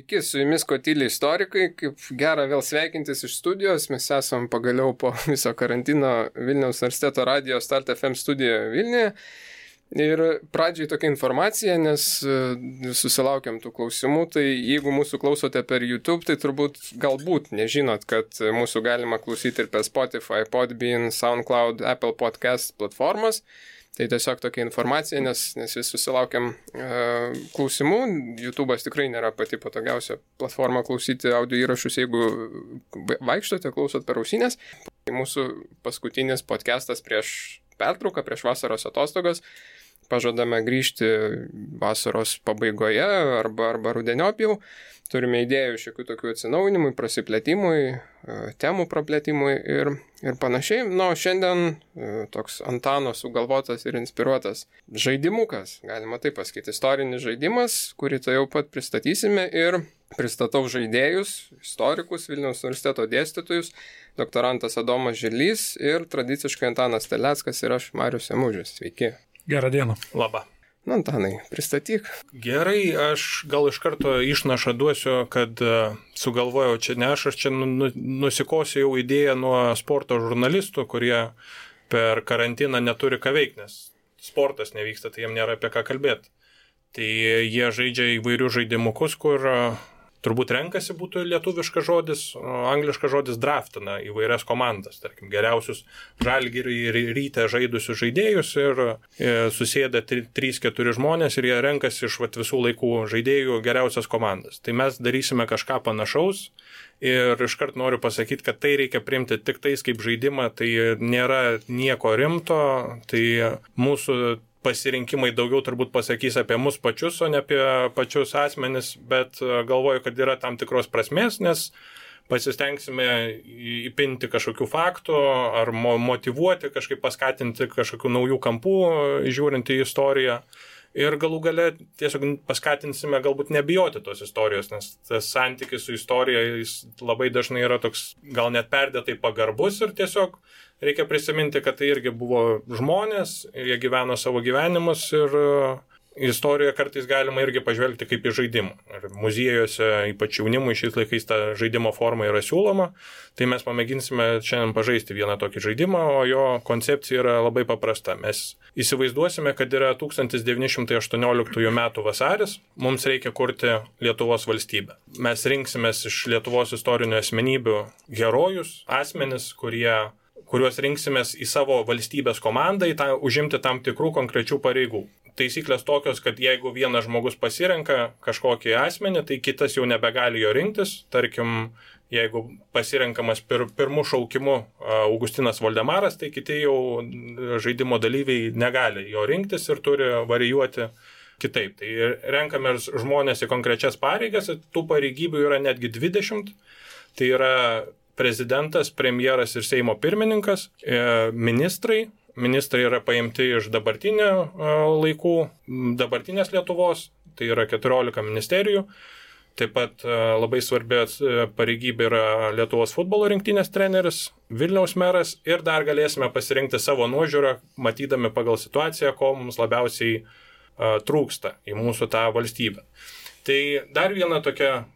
Sveiki, su jumis Kotyliai istorikai, kaip gera vėl sveikintis iš studijos, mes esam pagaliau po viso karantino Vilniaus universiteto radijo Start FM studijoje Vilniuje. Ir pradžiai tokia informacija, nes susilaukiam tų klausimų, tai jeigu mūsų klausote per YouTube, tai turbūt galbūt nežinot, kad mūsų galima klausyti ir per Spotify, Podbean, SoundCloud, Apple Podcast platformas. Tai tiesiog tokia informacija, nes vis susilaukiam klausimų. YouTube'as tikrai nėra pati patogiausia platforma klausyti audio įrašus, jeigu vaikštote, klausot per ausinės. Mūsų paskutinis podcastas prieš pertrauką, prieš vasaros atostogas. Pažadame grįžti vasaros pabaigoje arba rudeniop jau. Turime idėjų šiokių tokių atsinaujinimui, prasiplėtimui, temų praplėtimui ir panašiai. Na, o šiandien toks Antano sugalvotas ir inspiruotas žaidimukas, galima taip pasakyti, istorinis žaidimas, kurį tai jau pat pristatysime ir pristatau žaidėjus, istorikus, Vilniaus universiteto dėstytojus, doktorantas Adomas Žilys ir tradiciškai Antanas Terleckas ir aš, Marius Emužis. Sveiki. Gerą dieną. Labą. Na, Antanai, pristatyk. Gerai, aš gal iš karto išnašą duosiu, kad sugalvojau čia ne aš čia nusikosiu jau idėją nuo sporto žurnalistų, kurie per karantiną neturi ką veikti, nes sportas nevyksta, tai jiem nėra apie ką kalbėti. Tai jie žaidžia įvairius žaidimukus, kur turbūt renkasi būtų lietuviškas žodis, angliškas žodis draftina įvairias komandas, tarkim, geriausius Žalgirį ir Rytę žaidusius žaidėjus ir susėda 3-4 žmonės ir jie renkasi iš visų laikų žaidėjų geriausias komandas. Tai mes darysime kažką panašaus ir iškart noriu pasakyti, kad tai reikia priimti tik tais kaip žaidimą, tai nėra nieko rimto, tai mūsų pasirinkimai daugiau turbūt pasakys apie mus pačius, o ne apie pačius asmenis, bet galvoju, kad yra tam tikros prasmės, nes pasistengsime įpinti kažkokių faktų ar motyvuoti, kažkaip paskatinti kažkokių naujų kampų, žiūrint į istoriją. Ir galų gale tiesiog paskatinsime galbūt nebijoti tos istorijos, nes tas santykis su istorija jis labai dažnai yra toks gal net perdėtai pagarbus ir tiesiog reikia prisiminti, kad tai irgi buvo žmonės, jie gyveno savo gyvenimus ir istoriją kartais galima irgi pažvelgti kaip į žaidimą. Ir muziejuose, ypač jaunimui šiais laikais ta žaidimo forma yra siūloma, tai mes pamėginsime šiandien pažaisti vieną tokį žaidimą, o jo koncepcija yra labai paprasta. Mes įsivaizduosime, kad yra 1918 metų vasaris, mums reikia kurti Lietuvos valstybę. Mes rinksimės iš Lietuvos istorinių asmenybių herojus, asmenis, kuriuos rinksimės į savo valstybės komandą, užimti tam tikrų konkrečių pareigų. Taisyklės tokios, kad jeigu vienas žmogus pasirenka kažkokį asmenį, tai kitas jau nebegali jo rinktis. Tarkim, jeigu pasirenkamas pirmų šaukimu Augustinas Voldemaras, tai kiti jau žaidimo dalyviai negali jo rinktis ir turi varijuoti kitaip. Tai renkame žmonės į konkrečias pareigas, tų pareigybių yra netgi 20. Tai yra prezidentas, premjeras ir Seimo pirmininkas, ministrai. Ministrai yra paimti iš dabartinių laikų, dabartinės Lietuvos, tai yra 14 ministerijų. Taip pat labai svarbi pareigybė yra Lietuvos futbolo rinktinės treneris, Vilniaus meras ir dar galėsime pasirinkti savo nuožiūrą, matydami pagal situaciją, ko mums labiausiai trūksta į mūsų tą valstybę. Tai dar viena tokia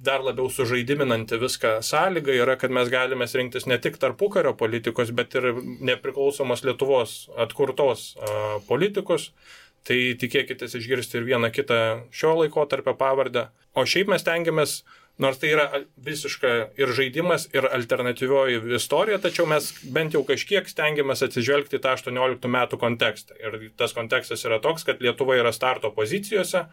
dar labiau sužaidiminanti viską sąlyga yra, kad mes galime rinktis ne tik tarpukario politikos, bet ir nepriklausomos Lietuvos atkurtos politikus. Tai tikėkitės išgirsti ir vieną kitą šio laikotarpio pavardę. O šiaip mes tengiamės, nors tai yra visiška ir žaidimas, ir alternatyvioji istorija, tačiau mes bent jau kažkiek stengiamės atsižvelgti tą 18 metų kontekstą. Ir tas kontekstas yra toks, kad Lietuva yra starto pozicijose,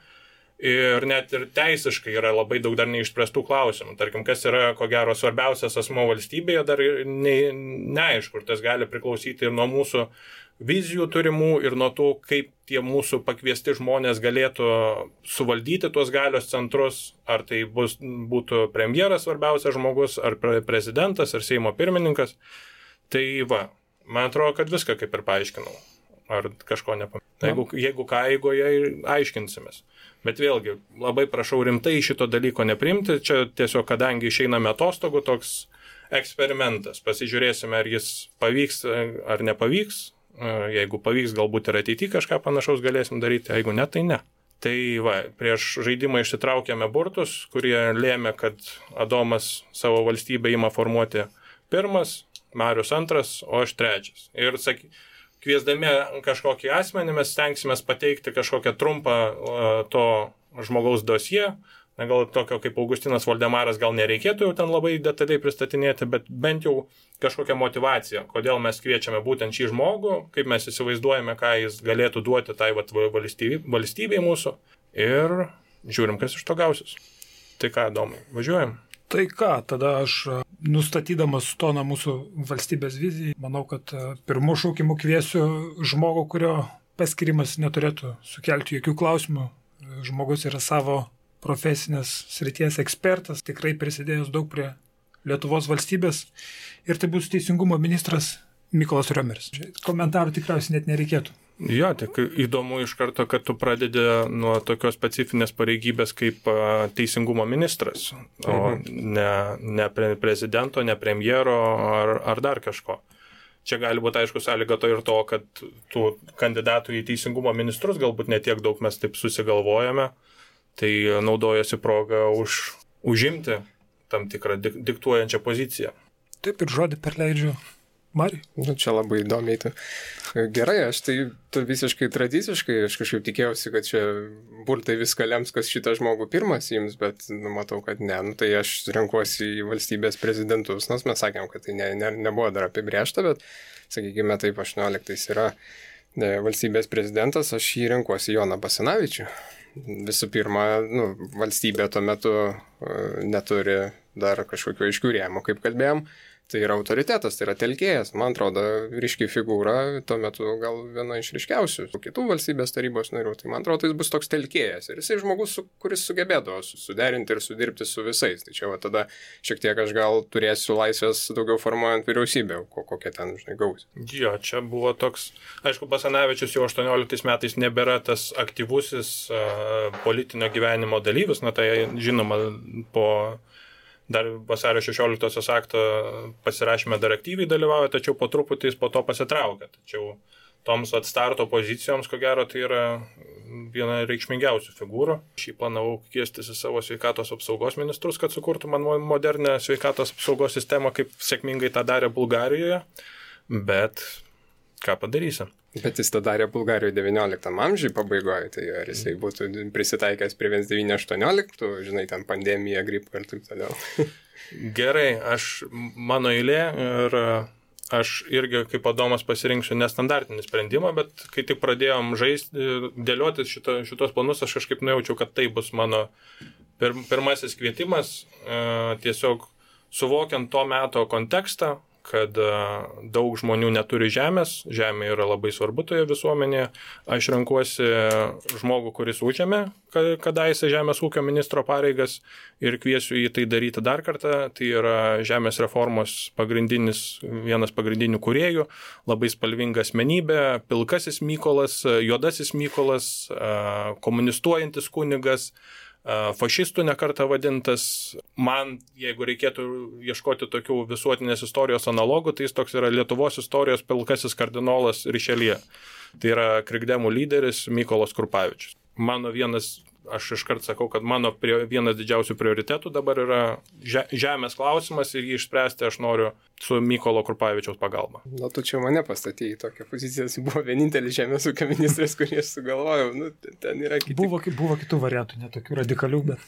ir net ir teisiškai yra labai daug dar neišspręstų klausimų. Tarkim, kas yra, ko gero, svarbiausias asmuo valstybėje, dar neaišku, ir tas gali priklausyti ir nuo mūsų vizijų turimų, ir nuo to, kaip tie mūsų pakviesti žmonės galėtų suvaldyti tuos galios centrus, ar tai būtų premjeras svarbiausias žmogus, ar prezidentas, ar Seimo pirmininkas. Tai man atrodo, kad viską kaip ir paaiškinau. Ar kažko nepamiršau. Jeigu ką, eigoje aiškinsimės. Bet vėlgi, labai prašau rimtai šito dalyko neprimti. Čia tiesiog, kadangi išeiname atostogų, toks eksperimentas. Pasižiūrėsime, ar jis pavyks ar nepavyks. Jeigu pavyks, galbūt ir ateityje kažką panašaus galėsim daryti. Jeigu ne, tai ne. Tai prieš žaidimą išsitraukėme burtus, kurie lėmė, kad Adomas savo valstybę ima formuoti pirmas, Marius antras, o aš trečias. Ir kviesdami kažkokį asmenį mes stengsime pateikti kažkokią trumpą to žmogaus dosiją. Na, gal tokio kaip Augustinas Voldemaras gal nereikėtų jau ten labai detaliai pristatinėti, bet bent jau kažkokią motivaciją, kodėl mes kviečiame būtent šį žmogų, kaip mes įsivaizduojame, ką jis galėtų duoti tai valstybei mūsų ir žiūrim, kas iš to gausis. Tai ką, Domai, važiuojam? Tai ką, tada aš nustatydamas toną mūsų valstybės vizijai, manau, kad pirmų šaukimų kviesiu žmogų, kurio paskirimas neturėtų sukelti jokių klausimų. Žmogus yra savo profesinės srities ekspertas, tikrai prisidėjęs daug prie Lietuvos valstybės ir tai bus teisingumo ministras Mykolas Riomeris. Komentarų tikriausiai net nereikėtų. Jo, tik įdomu iš karto, kad tu pradedi nuo tokios specifinės pareigybės kaip teisingumo ministras, o ne prezidento, ne premjero ar dar kažko. Čia gali būti, aišku, sąlyga to ir to, kad tų kandidatų į teisingumo ministrus galbūt netiek daug mes taip susigalvojame, tai naudojasi progą užimti tam tikrą diktuojančią poziciją. Taip ir žodį perleidžiu Mariui. Nu, čia labai įdomiai. Gerai, aš tai visiškai tradiciškai, aš kažkaip tikėjausi, kad čia burtai viską lems, kas šitą žmogų pirmas jums, bet matau, kad ne. Tai aš renkuosi į valstybės prezidentus, nors mes sakėm, kad tai nebuvo dar apibrėžta, bet, sakykime, taip 18 yra valstybės prezidentas, aš jį renkuosi Joną Basanavičių. Visų pirma, valstybė tuo metu neturi dar kažkokių aiškių rėmų, kaip kalbėjom. Tai yra autoritetas, tai yra telkėjas. Man atrodo, ryški figūra, tuo metu gal viena iš ryškiausių kitų valstybės tarybos narių. Tai man atrodo, jis bus toks telkėjas. Ir jisai žmogus, kuris sugebėdavo suderinti ir sudirbti su visais. Tai čia tada šiek tiek aš gal turėsiu laisvės daugiau formuojant vyriausybę, kokia ten, gausi. Jo, čia buvo toks, aišku, Basanavičius jau 18 metais nebėra tas aktyvusis politinio gyvenimo dalyvis, tai žinoma po dar vasario 16 akto pasirašyme dar aktyviai dalyvauja, tačiau po truputį jis po to pasitraukia. Tačiau toms starto pozicijoms, ko gero, tai yra viena reikšmingiausių figūrų. Šį planavau kviestis į savo sveikatos apsaugos ministrus, kad sukurtų man modernę sveikatos apsaugos sistemą, kaip sėkmingai tą darė Bulgarijoje, bet ką padarysim. Bet jis tą darė Bulgarijoje 19 amžiui pabaigoje, tai ar jisai būtų prisitaikęs prie 1918, žinai, ten pandemija, gripo ir taip toliau. Gerai, mano eilė ir aš irgi kaip Adomas pasirinksiu nestandartinį sprendimą, bet kai tik pradėjom dėliotis šitos planus, aš kažkaip nujaučiau, kad tai bus mano pirmasis kvietimas, tiesiog suvokiant to meto kontekstą, kad daug žmonių neturi žemės, žemė yra labai svarbu toje visuomenėje. Aš renkuosi žmogų, kuris užėmė kadaise žemės ūkio ministro pareigas ir kviesiu jį tai daryti dar kartą. Tai yra žemės reformos vienas pagrindinių kūrėjų, labai spalvinga asmenybė, pilkasis Mykolas, juodasis Mykolas, komunistuojantis kunigas, fašistų nekartą vadintas. Man, jeigu reikėtų ieškoti tokių visuotinės istorijos analogų, tai jis toks yra Lietuvos istorijos pilkasis kardinolas Rišeljė. Tai yra krikdemų lyderis Mykolas Krupavičius. Aš iškart sakau, kad mano vienas didžiausių prioritetų dabar yra žemės klausimas ir jį išspręsti aš noriu su Mykolo Krupavičiaus pagalba. Na, tu čia mane pastatėjai į tokią poziciją, jis buvo vienintelis žemės ūkio ministras, kurį aš sugalvojau. Ten yra kiti. Buvo kitų variantų, netokių radikalių, bet...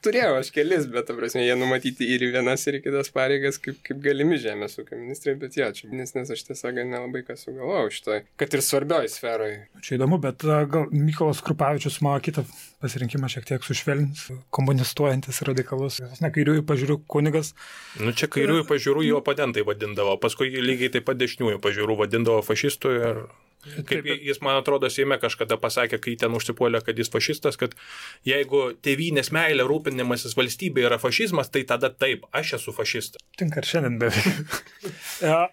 Turėjau aš kelis, bet, ta prasme, jie numatyti ir į vienas, ir į kitas pareigas, kaip galimi žemės ūkio ministrai, bet čia, nes aš tiesiog nelabai ką sugalvojau šitoj, kad ir svarbioj sferoj. Čia įdomu, bet gal Mykolas Krupavičius mano kitą pasirinkimą šiek tiek sušvelnins, komunistuojantis radikalus, kairiųjų pažiūrų kunigas. Čia kairiųjų pažiūrų jo oponentai vadindavo, paskui lygiai taip pat dešiniųjų pažiūrų vadindavo fašistų ir kaip jis, man atrodo, Seime kažkada pasakė, kai ten užsipuolė, kad jis fašistas, kad jeigu tėvynės meilė rūpinimasis valstybė yra fašizmas, tai tada taip, aš esu fašistas. Tinka ir šiandien beveik.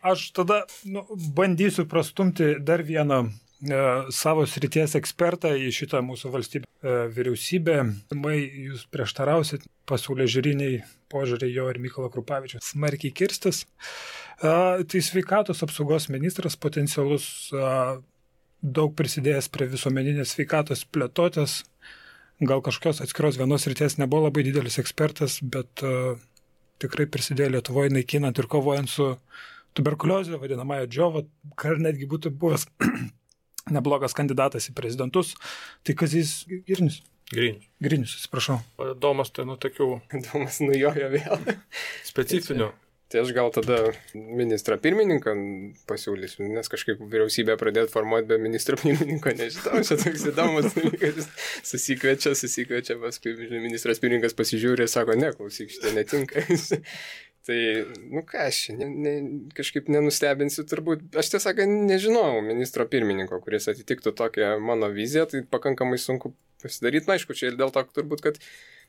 Aš tada bandysiu prastumti dar vieną savo srities ekspertą į šitą mūsų vyriausybę. Jūs prieštarausit pasaulėžiūriniai požiūriai jo ir Mykolo Krupavičiaus smarkiai kirstis. Tai sveikatos apsaugos ministras potencialus, daug prisidėjęs prie visuomeninės sveikatos plėtotės, gal kažkokios atskiros vienos ryties nebuvo labai didelis ekspertas, bet tikrai prisidėjo Lietuvoje naikinant ir kovojant su tuberkuliozė, vadinamąją džiovą, kar netgi būtų buvęs neblogas kandidatas į prezidentus. Tai Kazys Grinius. Grinius, atsiprašau. Domas, tai tokių... Domas nujojo vėl. Specifinių. Tai aš gal tada ministrą pirmininką pasiūlysiu, nes kažkaip vyriausybė pradėti formuoti be ministro pirmininko, nežinau, čia toks įdomus dalykas, susikviečia, paskui ministras pirmininkas pasižiūrė ir sako, ne, klausyk, šitai netinka. Tai, ką aš kažkaip nenustebinsiu turbūt, aš tiesą sakant, nežinau ministro pirmininko, kuris atitiktų tokią mano viziją, tai pakankamai sunku pasidaryti, aišku, čia ir dėl to turbūt, kad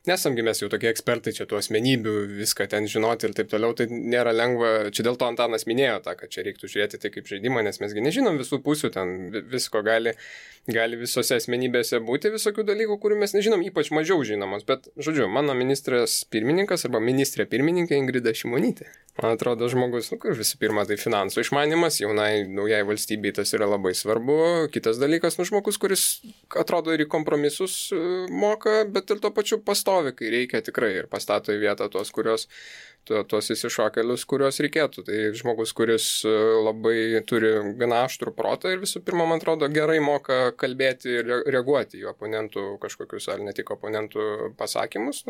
nesamgi mes jau tokie ekspertai, čia tų asmenybių, viską ten žinoti ir taip toliau, tai nėra lengva, čia dėl to Antanas minėjo tą, kad čia reiktų žiūrėti tai kaip žaidimą, nes mesgi nežinom visų pusių, ten visko gali visose asmenybėse būti, visokių dalykų, kurių mes nežinom, ypač mažiau žinomos, bet, žodžiu, mano ministras pirmininkas arba ministrė pirmininkė Ingrida Šimonytė. Man atrodo, žmogus, kur visų pirma, tai finansų išmanimas, naujai valstybei tas yra labai svarbu. Kitas dalykas, žmogus, kuris atrodo ir į kompromisus moka, bet ir tuo pačiu pastovi, kai reikia tikrai ir pastato į vietą tuos įsišokelius, kuriuos reikėtų. Tai žmogus, kuris labai turi gana aštrų protą ir visų pirma, man atrodo, gerai moka kalbėti ir reaguoti į oponentų kažkokius, ar ne tik oponentų pasakymus,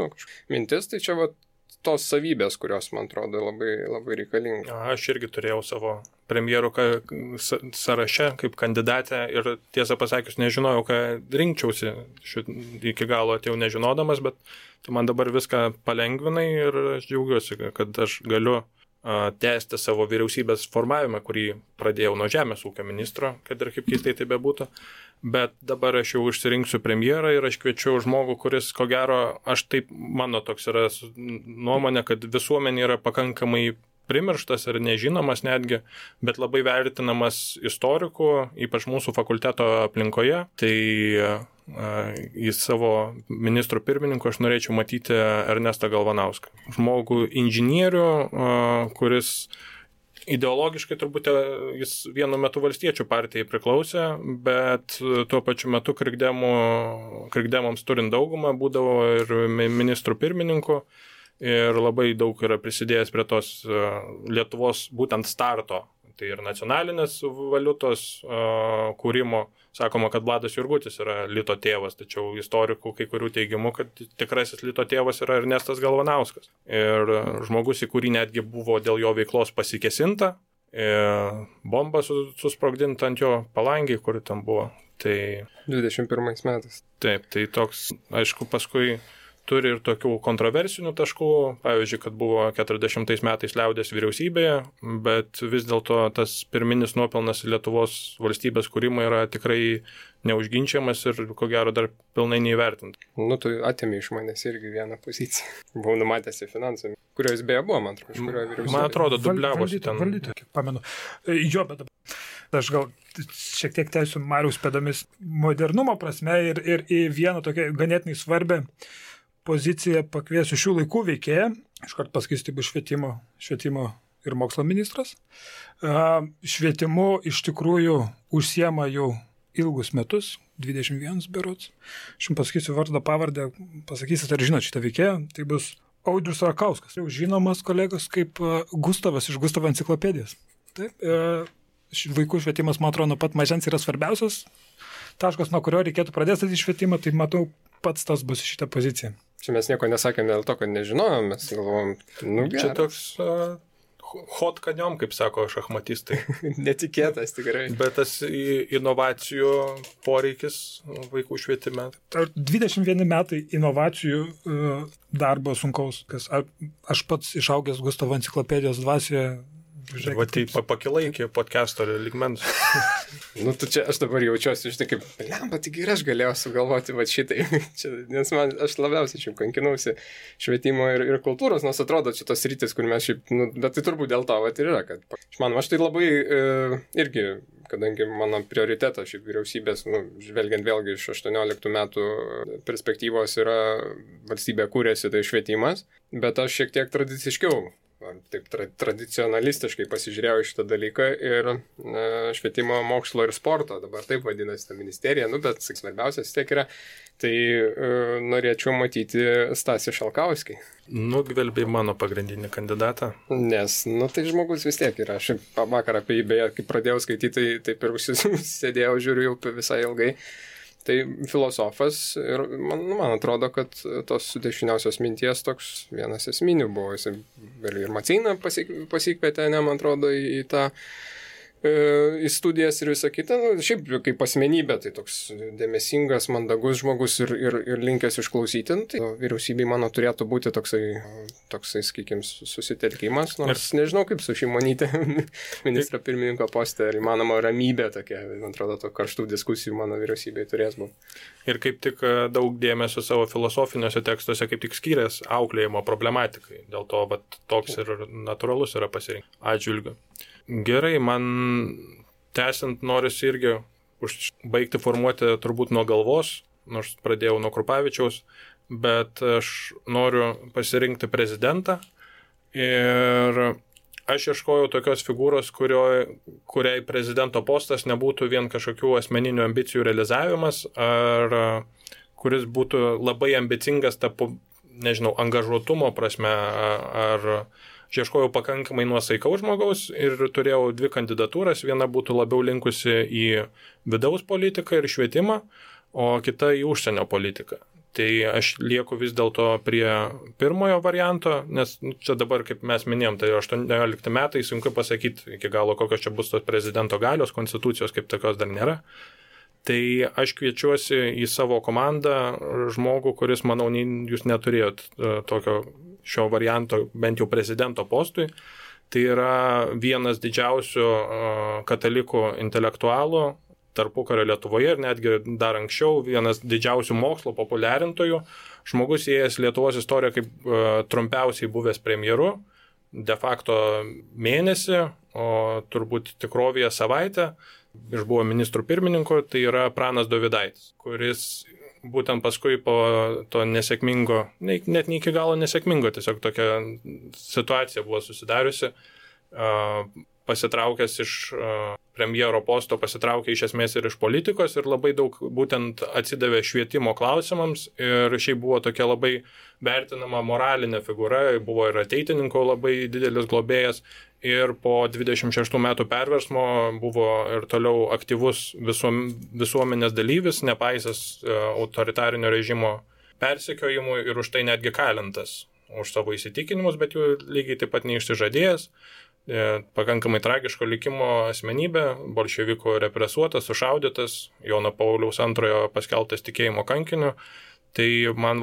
mintis, tai čia tos savybės, kurios, man atrodo, labai, labai reikalinga. Aš irgi turėjau savo premjerų sąraše kaip kandidatę ir tiesą pasakius nežinojau, ką rinkčiausi. Iki galo atėjau nežinodamas, bet tu man dabar viską palengvinai ir aš džiaugiuosi, kad aš galiu tęsti savo vyriausybės formavimą, kurį pradėjau nuo žemės ūkio ministro, kad ir kaip keistai tai bebūtų. Bet dabar aš jau išsirinksiu premjerą ir aš kviečiu žmogų, kuris, ko gero, mano toks yra nuomonė, kad visuomenė yra pakankamai primirštas ir nežinomas netgi, bet labai vertinamas istorikų, ypač mūsų fakulteto aplinkoje. Tai į savo ministrų pirmininku aš norėčiau matyti Ernestą Galvanauską. Žmogų inžinierių, kuris ideologiškai turbūt jis vienu metu valstiečių partijai priklausė, bet tuo pačiu metu krikdemams turint daugumą būdavo ir ministrų pirmininku ir labai daug yra prisidėjęs prie tos Lietuvos būtent starto, tai ir nacionalinės valiutos kūrimo. Sakoma, kad Vladas Jurgutis yra Lito tėvas, tačiau istorikų kai kurių teigimų, kad tikrasis Lito tėvas yra Ernestas Galvanauskas. Ir žmogus, į kurį netgi buvo dėl jo veiklos pasikesinta, bomba susprogdinta ant jo palangiai, kur ten buvo. Tai 21 metais. Taip, tai toks, aišku, paskui turi ir tokių kontroversinių taškų, pavyzdžiui, kad buvo 40 metais liaudės vyriausybėje, bet vis dėlto tas pirminis nuopelnas Lietuvos valstybės kūrimo yra tikrai neužginčiamas ir, ko gero, dar pilnai neįvertinta. Tu atėmė iš manęs irgi vieną poziciją. Buvau numatęs į finansą, kurios beje buvo, man atrodo, iš kurio vyriausybė. Man atrodo, dubliavosi ten. Valdyti, kiek pamenu. Jo, bet aš gal šiek tiek teisiu Mariaus pėdomis modernumo prasme ir į vieną tokią ganėtinai svarbę poziciją pakviesiu šių laikų veikėją, iškart pasakysiu, tai bus švietimo ir mokslo ministras. Švietimu iš tikrųjų užsiema jau ilgus metus, 21 berods. Aš jums pasakysiu vardą, pavardę, pasakysit, ar žinot šitą veikėją, tai bus Audrius Rakauskas. Jau žinomas kolegos kaip Gustavas iš Gustavo enciklopedijos. Taip, vaikų švietimas, man atrodo, nuo pat mažens yra svarbiausias taškas, nuo kurio reikėtų pradėti statyti švietimą, tai matau, pats tas bus šitą poziciją. Čia mes nieko nesakėme dėl to, kad nežinojom, mes galvojom, čia toks hot kaniom, kaip sako šachmatistai. Netikėtas tikrai. Bet tas inovacijų poreikis vaikų švietime. 21 metai inovacijų darbo sunkaus. Aš pats išaugęs Gustavo enciklopedijos dvasioje. Va tai pakilai iki podcast'o lygmens. Čia aš dabar jaučiuosi, kaip, lemba, tik ir aš galėjau sugalvoti šitai. Nes aš labiausiai čia kankinausi švietimo ir kultūros, nors atrodo čia tos rytis, kur mes šiaip, bet tai turbūt dėl to ir yra, kad aš tai labai irgi, kadangi mano prioritetas šiaip vyriausybės, žvelgiant vėlgi iš 18 metų perspektyvos yra valstybė kūrėsi, tai švietimas, bet aš šiek tiek tradiciškiau taip tradicionalistiškai pasižiūrėjau šitą dalyką ir švietimo, mokslo ir sporto, dabar taip vadinasi ta ministerija, bet svarbiausias vis tiek yra, tai norėčiau matyti Stasį Šalkauskį. Nugvelbė mano pagrindinį kandidatą. Nes, tai žmogus vis tiek yra. Aš vakar apie jį, beje, kai pradėjau skaityti, taip ir sėdėjau, žiūriu jau visai ilgai. Tai filosofas ir man atrodo, kad tos dešiniausios minties toks vienas esminių buvo. Jis ir Maceiną pasikvietė, man atrodo, į tą į studijas ir visą kitą. Šiaip kaip asmenybė, tai toks dėmesingas, mandagus žmogus ir linkęs išklausyti. Tai vyriausybei mano turėtų būti toksai sakykime, susitelkimas. Nors nežinau, kaip su Šimonyte ministro pirmininko poste, ar įmanoma ramybė tokia, man atrodo, to karštų diskusijų mano vyriausybei turės būti. Ir kaip tik daug dėmesio savo filosofiniuose tekstuose kaip tik skyrės auklėjimo problematikai. Dėl to toks ir natūralus yra pasirinkti atžvilgiu. Gerai, man tęsiant norisi irgi baigti formuoti turbūt nuo galvos, nors pradėjau nuo Krupavičiaus, bet aš noriu pasirinkti prezidentą ir aš ieškojau tokios figūros, kuriai prezidento postas nebūtų vien kažkokių asmeninių ambicijų realizavimas, ar kuris būtų labai ambicingas angažuotumo prasme, ar ieškojau pakankamai nuosaikaus žmogaus ir turėjau 2 kandidatūras. Viena būtų labiau linkusi į vidaus politiką ir švietimą, o kita į užsienio politiką. Tai aš lieku vis dėlto prie pirmojo varianto, nes čia dabar, kaip mes minėjom, tai 18 metai, sunku pasakyti iki galo, kokios čia bus tos prezidento galios, konstitucijos kaip tokios dar nėra. Tai aš kviečiuosi į savo komandą žmogų, kuris, manau, jūs neturėjot tokio šio varianto bent jau prezidento postui. Tai yra vienas didžiausių katalikų intelektualų tarpukario Lietuvoje ir netgi dar anksčiau vienas didžiausių mokslo populiarintojų. Žmogus įėjęs Lietuvos istoriją kaip trumpiausiai buvęs premjeru, de facto mėnesį, o turbūt tikrovėje savaitę. Išbuvo ministrų pirmininko, tai yra Pranas Dovydaitis, kuris būtent paskui po to nesėkmingo, net ne iki galo nesėkmingo, tiesiog tokia situacija buvo susidariusi, pasitraukęs iš premjero posto, pasitraukė iš esmės ir iš politikos ir labai daug būtent atsidavė švietimo klausimams ir šiaip buvo tokia labai vertinama moralinė figūra, buvo ir ateitininko labai didelis globėjas ir po 26 metų perversmo buvo ir toliau aktyvus visuomenės dalyvis, nepaisęs autoritarinio režimo persekiojimų ir už tai netgi kalintas už savo įsitikinimus, bet jų lygiai taip pat neišsižadėjęs. Pakankamai tragiško likimo asmenybė, bolševikų represuotas, sušaudytas, Jono Pauliaus II paskelbtas tikėjimo kankiniu. Tai man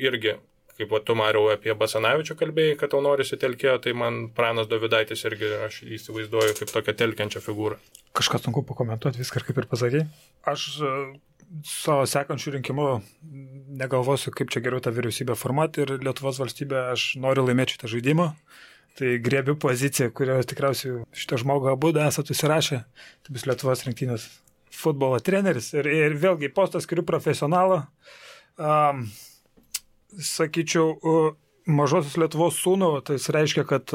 irgi, kaip tu, Mariau, apie Basanavičių kalbėjai, kad tau norisi telkėjo, tai man Pranas Dovydaitis irgi aš įsivaizduoju kaip tokią telkiančią figūrą. Kažką sunku pakomentuoti, viską kaip ir pasakei. Aš savo sekančių rinkimų negalvosiu, kaip čia geriau tą vyriausybę formuoti ir Lietuvos valstybę aš noriu laimėti šitą žaidimą. Tai griebiu poziciją, kurio tikriausiai šitą žmogų abu esate įsirašę. Tai bus Lietuvos rinktinės futbolo treneris. Ir vėlgi postas skiriu profesionalą. Sakyčiau, mažosios Lietuvos sūnų, tai reiškia, kad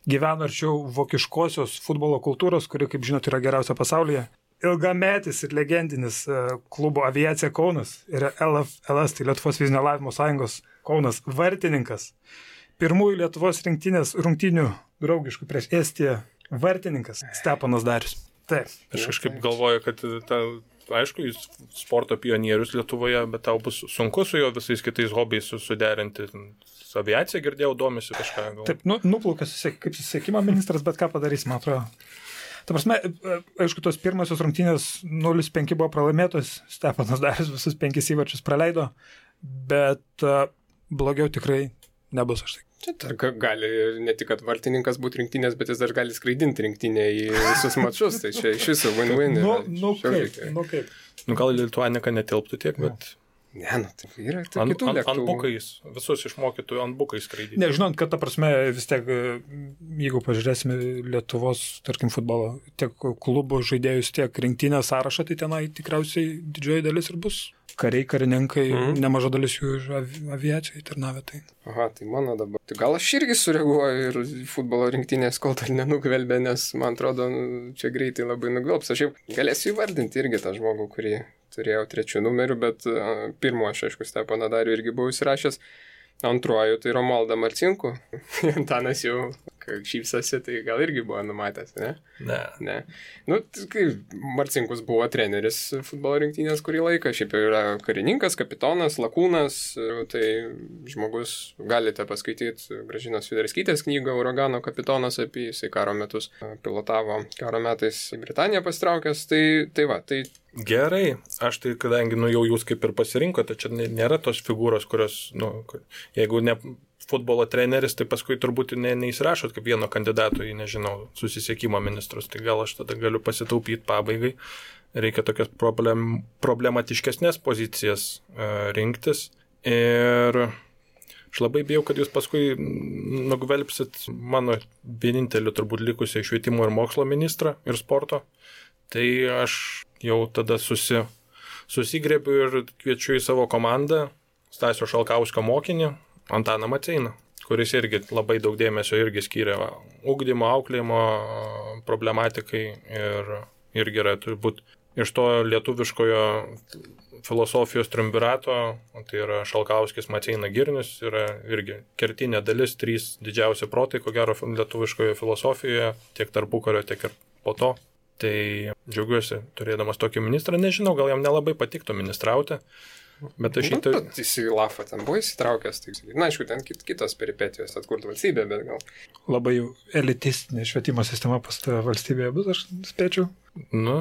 gyvena arčiau vokiškosios futbolo kultūros, kuri, kaip žinot, yra geriausia pasaulyje. Ilgametis ir legendinis klubo Aviacija Kaunas ir LFLS, tai Lietuvos fizinio lavinimo sąjungos Kaunas vartininkas. Pirmųjų Lietuvos rinktinės rungtynių draugiškų prieš Estiją vartininkas Steponas Darius. Taip. Aš kažkaip galvoju, kad aišku, jis sporto pionierius Lietuvoje, bet tau bus sunku su jo visais kitais hobiais suderinti. Su aviacija girdėjau, domisi kažką. Taip, nuplaukas kaip susisiekimo ministras, bet ką padarys, man atrodo. Ta prasme, aišku, tos pirmosios rungtynės 0-5 buvo pralaimėtos, Steponas Darius visus 5 įvarčius praleido, bet blogiau tikrai nebus, aš tai. Čia gali ne tik, kad vartininkas būti rinktinės, bet jis dar gali skraidinti rinktinę į visus mačus, tai čia iš viso win-win. Kaip. Gal Lituanika netilptų tiek, bet... Ne, tai yra kitų lėktuvų. Antbukais, visus išmokytų antbukais skraidyti. Nežinant, kad ta prasme vis tiek, jeigu pažiūrėsime Lietuvos, tarkim, futbolo, tiek klubų žaidėjus, tiek rinktinės sąrašą, tai tenai tikriausiai didžioji dalis ir bus kariai, karininkai, nemaža dalis jų iš aviacijai tarnavę. Tai. Aha, tai mano dabar. Tai gal aš irgi sureaguoju ir futbolo rinktinės kol dar nenugvelbė, nes man atrodo, čia greitai labai nugvelbs. Aš jau galėsiu įvardinti irgi tą žmogų, kurį turėjau 3 numeriu, bet pirmo aš, aišku, Steponą Darių irgi buvau įsirašęs. Antruoju tai Romualdą Marcinkų. Antanas jau šypsosi, tai gal irgi buvo numatęs, ne? Ne. Nu, kai Marcinkus buvo treneris futbolo rinktinės kurį laiką, šiaip yra karininkas, kapitonas, lakūnas, tai žmogus, galite paskaityti Gražinos Fiderskytės knygą Uragano kapitonas, apie jisai karo metus pilotavo karo metais į Britaniją pasitraukęs, tai va, tai Gerai, aš tai, kadangi jau jūs kaip ir pasirinkote, čia nėra tos figūros, kurios, jeigu ne futbolo treneris, tai paskui turbūt neįsirašot kaip vieno kandidato į, nežinau, susisiekimo ministrus, tai gal aš tada galiu pasitaupyti pabaigai. Reikia tokias problematiškesnės pozicijas rinktis ir aš labai bijau, kad jūs paskui nugvelbsit mano vieninteliu turbūt likusiai švietimo ir mokslo ministrą ir sporto. Tai aš jau tada susigrėbiu ir kviečiu į savo komandą Stasio Šalkauskio mokinį Antaną Maceiną, kuris irgi labai daug dėmesio irgi skyrė ugdymo, auklėjimo problematikai ir irgi yra turbūt iš to lietuviškojo filosofijos triumvirato, tai yra Šalkauskis, Maceina, Girnius, yra irgi kertinė dalis, 3 didžiausi protai, ko gero lietuviškoje filosofijoje, tiek tarpukario, tiek ir po to. Tai džiaugiuosi turėdamas tokį ministrą, nežinau, gal jam nelabai patiktų ministrauti, bet aš Bet jis į Lafą ten buvo įsitraukęs, tai na, aišku, ten kitos peripetijos atkurti valstybę, bet gal. Labai jau elitistinė švietimo sistema pas tą valstybėje bus, aš spėčiau. Nu,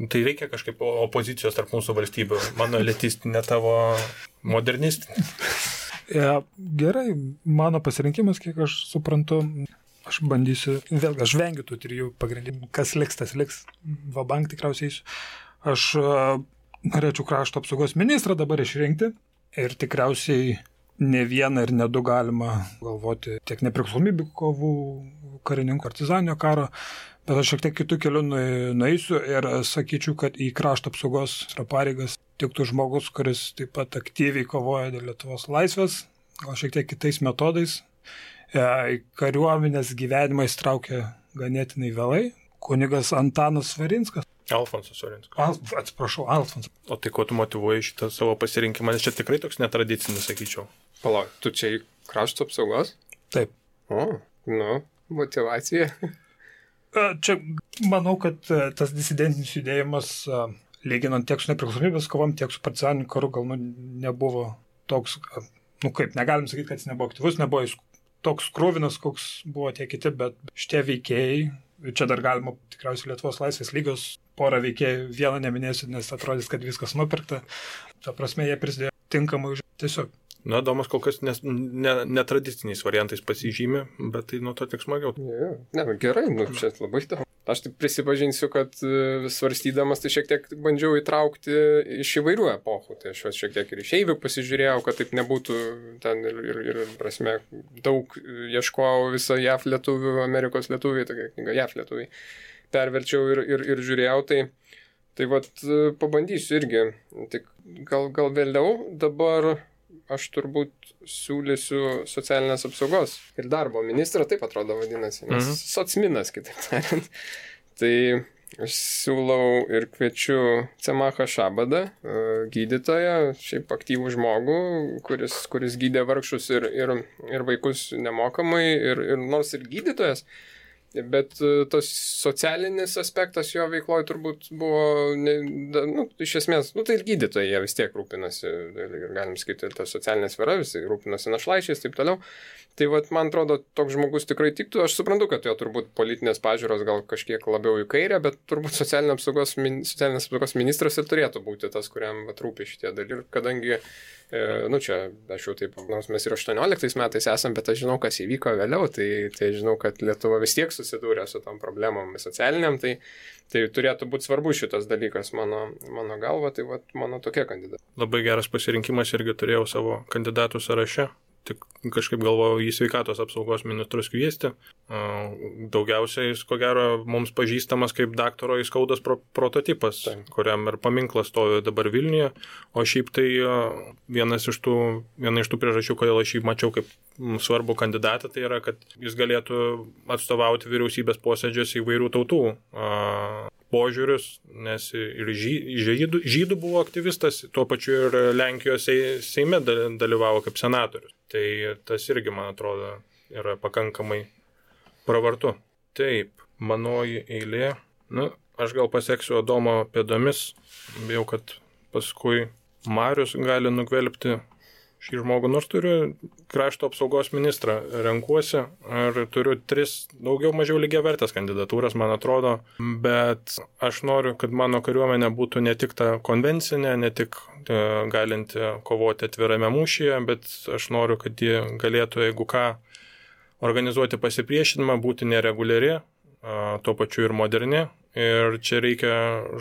tai reikia kažkaip opozicijos tarp mūsų valstybių, mano elitistinė, tavo modernistinė. Gerai, mano pasirinkimas, kiek aš suprantu, aš bandysiu, vėlgi, aš vengiu tų 3 pagrindinių, kas liks, tas liks, vabank tikriausiai eisiu. Aš norėčiau krašto apsaugos ministrą dabar išrinkti ir tikriausiai ne vieną ir ne 2 galima galvoti tiek nepriklausomybių kovų, karininkų, partizaninio karo, bet aš šiek tiek kitų kelių nueisiu ir sakyčiau, kad į krašto apsaugos pareigas tiktų žmogus, kuris taip pat aktyviai kovoja dėl Lietuvos laisvės, gal šiek tiek kitais metodais. Kariuomenės gyvenimą įstraukė ganėtinai vėlai. Kunigas Antanas Svarinskas. Alfonsas Svarinskas. Atsiprašau, Alfonsas. O tai ko tu motyvuoji šitą savo pasirinkimą? Nes čia tikrai toks netradicinis, sakyčiau. Palauk, tu čia į krašto apsaugos? Taip. Motyvacija. Čia manau, kad tas disidentinis judėjimas, lyginant tiek su nepriklausomybės kovom, tiek su partizaniniu karu, gal nebuvo toks, kaip, negalim sakyti, kad jis nebuvo aktyvus, nebuvo jis toks krūvinas, koks buvo tie kiti, bet šitie veikėjai, čia dar galima tikriausiai Lietuvos laisvės lygos porą veikėjų, vieną neminėsiu, nes atrodys, kad viskas nupirkta. Ta prasme, jie prisidėjo tinkamai tiesiog. Na, Domas kol kas netradiciniais variantais pasižymė, bet tai nuo to tik smagiau. Ne, gerai, čia labai daug. Aš taip prisipažinsiu, kad svarstydamas tai šiek tiek bandžiau įtraukti iš įvairių epochų. Tai aš šiek tiek ir išeivių pasižiūrėjau, kad taip nebūtų ten ir prasme, daug ieškojau visą JAF lietuvių, Amerikos lietuviai, tokia knyga JAF lietuviai. Perverčiau ir žiūrėjau, tai vat pabandysiu irgi. Tik gal vėliau dabar aš turbūt siūlysiu socialinės apsaugos ir darbo ministrą, taip atrodo vadinasi, nes socminas, kitaip tariant. Tai aš siūlau ir kviečiu Cemachą Šabadą, gydytoją, šiaip aktyvų žmogų, kuris gydė vargšus ir vaikus nemokamai, ir nors ir gydytojas, bet tas socialinis aspektas jo veikloje turbūt buvo, iš esmės, tai ir gydytojai jie vis tiek rūpinasi, ir galim sakyti, ir ta socialinė sfera, visi rūpinasi našlaičiais, taip toliau. Tai man atrodo, toks žmogus tikrai tiktų. Aš suprantu, kad jo turbūt politinės pažiūros gal kažkiek labiau į kairę, bet turbūt socialinės apsaugos ministras ir turėtų būti tas, kuriam rūpi šitie dalykai. Kadangi, čia aš jau taip, nors mes ir 18 metais esam, bet aš žinau, kas įvyko vėliau, tai žinau, kad Lietuva vis tiek susidūrė su tom problemom socialiniam, tai turėtų būti svarbu šitas dalykas mano galva, tai mano tokia kandidatė. Labai geras pasirinkimas, irgi turėjau savo kandidatų sąraše. tik kažkaip galvojau į sveikatos apsaugos ministrus kviesti. Daugiausiai jis, ko gero, mums pažįstamas kaip daktaro Įskaudos prototipas, kuriam ir paminklas stovi dabar Vilniuje. O šiaip tai viena iš tų priežasčių, kodėl aš jį mačiau kaip svarbų kandidatą, tai yra, kad jis galėtų atstovauti vyriausybės posėdžiuose įvairių tautų požiūrius, nes ir žydų buvo aktyvistas, tuo pačiu ir Lenkijos Seime dalyvavo kaip senatorius. Tai tas irgi, man atrodo, yra pakankamai pravartu. Taip, manoji eilė. Aš gal paseksiu Adomo pėdomis, bijau, kad paskui Marius gali nugvelbti šį žmogų, nors turiu krašto apsaugos ministrą, renkuosi ir turiu 3 daugiau mažiau lygiavertės kandidatūras, man atrodo, bet aš noriu, kad mano kariuomenė būtų ne tik ta konvencinė, ne tik galinti kovoti atvirame mūšyje, bet aš noriu, kad ji galėtų, jeigu ką, organizuoti pasipriešinimą, būti nereguliari, tuo pačiu ir moderni. Ir čia reikia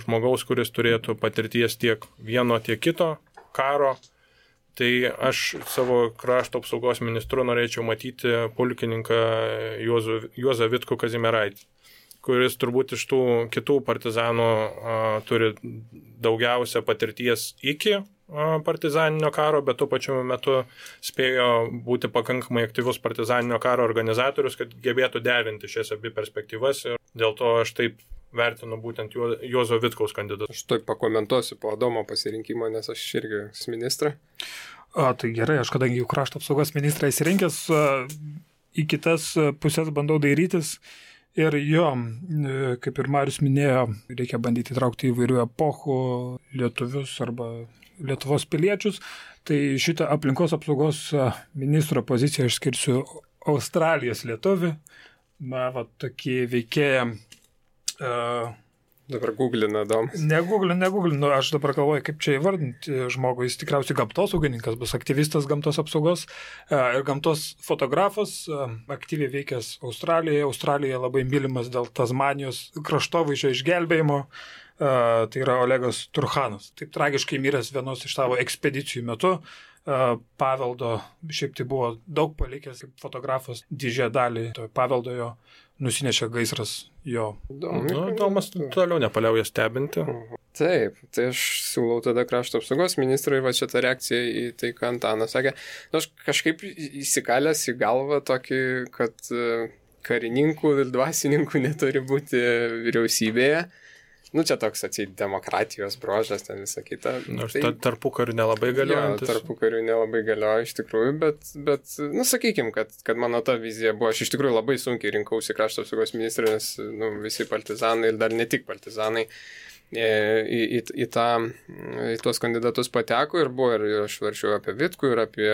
žmogaus, kuris turėtų patirties tiek vieno, tiek kito karo. Tai aš savo krašto apsaugos ministru norėčiau matyti pulkininką Juozą Vitkų Kazimieraitį, kuris turbūt iš tų kitų partizanų turi daugiausia patirties iki partizaninio karo, bet tuo pačiu metu spėjo būti pakankamai aktyvus partizaninio karo organizatorius, kad gebėtų derinti šias abi perspektyvas. Ir dėl to aš taip vertinu būtent Juozo Vitkaus kandidatą. Aš taip pakomentuosiu po Adomo pasirinkimo, nes aš irgi ministrą. Tai gerai, aš kadangi jau krašto apsaugos ministrą įsirinkęs, į kitas pusės bandau dairytis. Ir jo, kaip ir Marius minėjo, reikia bandyti įtraukti įvairių epochų lietuvius arba Lietuvos piliečius. Tai šitą aplinkos apsaugos ministro poziciją aš skirsiu Australijos lietuvį. Tokį veikėją. Dabar googlina Adomas. Negooglinu. Aš dabar galvoju, kaip čia įvardinti žmogų. Jis tikriausiai gamtosaugininkas, bus aktyvistas gamtos apsaugos ir gamtos fotografas, aktyviai veikęs Australijoje. Australija labai mylimas dėl Tasmanijos kraštovaizdžio išgelbėjimo. Tai yra Olegas Turchanas. Taip tragiškai miręs vienos iš savo ekspedicijų metu. Paveldo, šiaip tai buvo daug palikęs kaip fotografas, didžiąją dalį paveldo jo nusinešė gaisras jo. Tomas toliau nepaliauja stebinti. Taip, tai aš siūlau tada krašto apsaugos ministrui va šitą reakciją į tai, ką Antanas sakė. Aš kažkaip įsikalęs į galvą tokį, kad karininkų ir dvasininkų neturi būti vyriausybėje. Čia toks atseit demokratijos brožas, ten visą kitą. Nors tarpukariu nelabai galiojantis. Tarpukariu nelabai galioja iš tikrųjų, bet sakykime, kad mano ta vizija buvo, aš iš tikrųjų labai sunkiai rinkausi krašto apsaugos ministrą, nes visi partizanai ir dar ne tik partizanai į tuos kandidatus pateko ir buvo, ir aš varčiau apie Vitkų, ir apie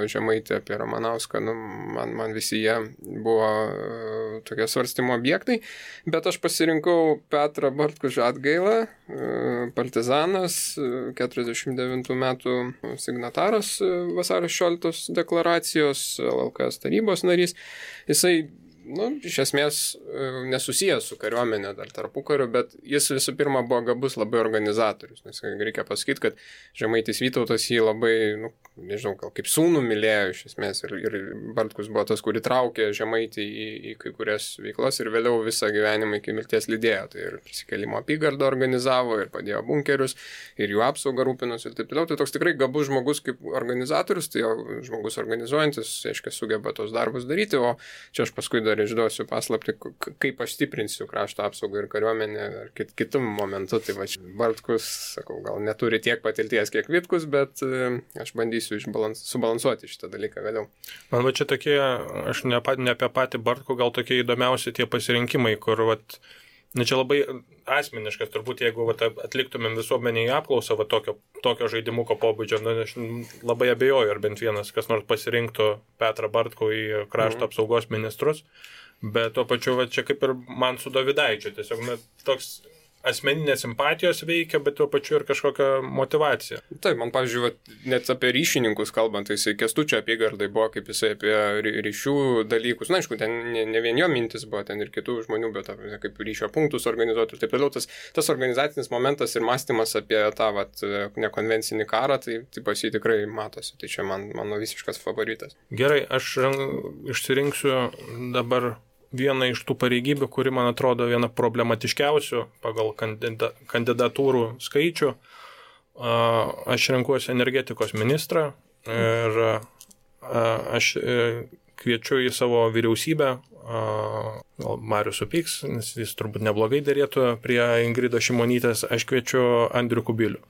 Žemaitį, apie Ramanauską, man visi jie buvo tokie svarstymo objektai, bet aš pasirinkau Petrą Bartkų Žadgailą, partizanas, 49 metų signataras vasario 16 deklaracijos, LKS tarybos narys. Jisai iš esmės nesusijęs su kariuomenė dar tarpukariu, bet jis visų pirma buvo gabus labai organizatorius, nes reikia pasakyti, kad Žemaitis Vytautas jį labai, nežinau, gal kaip sūnų mylėjo iš esmės ir Bartkus buvo tas, kuri traukė Žemaitį į kai kurias veiklas ir vėliau visą gyvenimą iki mirties lydėjo, tai ir prisikėlimo apygardą organizavo ir padėjo bunkerius ir jų apsaugą rūpinosi ir taip toliau, tai toks tikrai gabus žmogus kaip organizatorius, tai žmogus organizuojantis, aiškiai, sugeba tos darbus daryti, o čia aš paskui dar išduosiu paslapti, kaip aš stiprinsiu krašto apsaugą ir kariuomenę ar kitų momentų. Tai va, Bartkus, sakau, gal neturi tiek patirties, kiek Vitkus, bet aš bandysiu subalansuoti šitą dalyką vėliau. Man va čia tokie, aš ne apie patį Bartkų, gal tokie įdomiausi tie pasirinkimai, kur čia labai asmeniškas, turbūt jeigu atliktumėm visuomenėje apklausą tokio žaidimuko pobūdžio, aš labai abejoju, ar bent vienas kas nors pasirinktų Petrą Bartkų į krašto apsaugos ministrus, bet tuo pačiu čia kaip ir man su Dovydaičiu, tiesiog toks asmeninės simpatijos veikia, bet tuo pačiu ir kažkokia motivacija. Taip, man, pavyzdžiui, net apie ryšininkus kalbant, tai jisai Kęstučio apygardai buvo, kaip jisai apie ryšių dalykus. Na, aišku, ten ne vien jo mintis buvo, ten ir kitų žmonių, bet kaip ryšio punktus organizuoti ir taip toliau. Tas organizacinis momentas ir mąstymas apie tą nekonvencinį karą, tai pas jį tikrai matosi. Tai čia mano visiškas favoritas. Gerai, aš išsirinksiu dabar viena iš tų pareigybių, kuri, man atrodo, viena problematiškiausių pagal kandidatūrų skaičių. Aš renkuosi energetikos ministrą ir aš kviečiu į savo vyriausybę, Marius supyks, nes jis turbūt neblogai derėtų prie Ingridos Šimonytės, aš kviečiu Andrių Kubilių.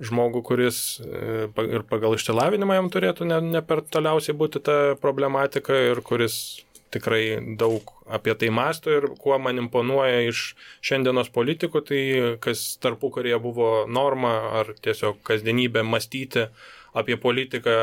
Žmogų, kuris ir pagal išsilavinimą jam turėtų ne per toliausiai būti ta problematika ir kuris tikrai daug apie tai mąsto ir kuo man imponuoja iš šiandienos politikų, tai kas tarpukaryje buvo norma ar tiesiog kasdienybė mąstyti apie politiką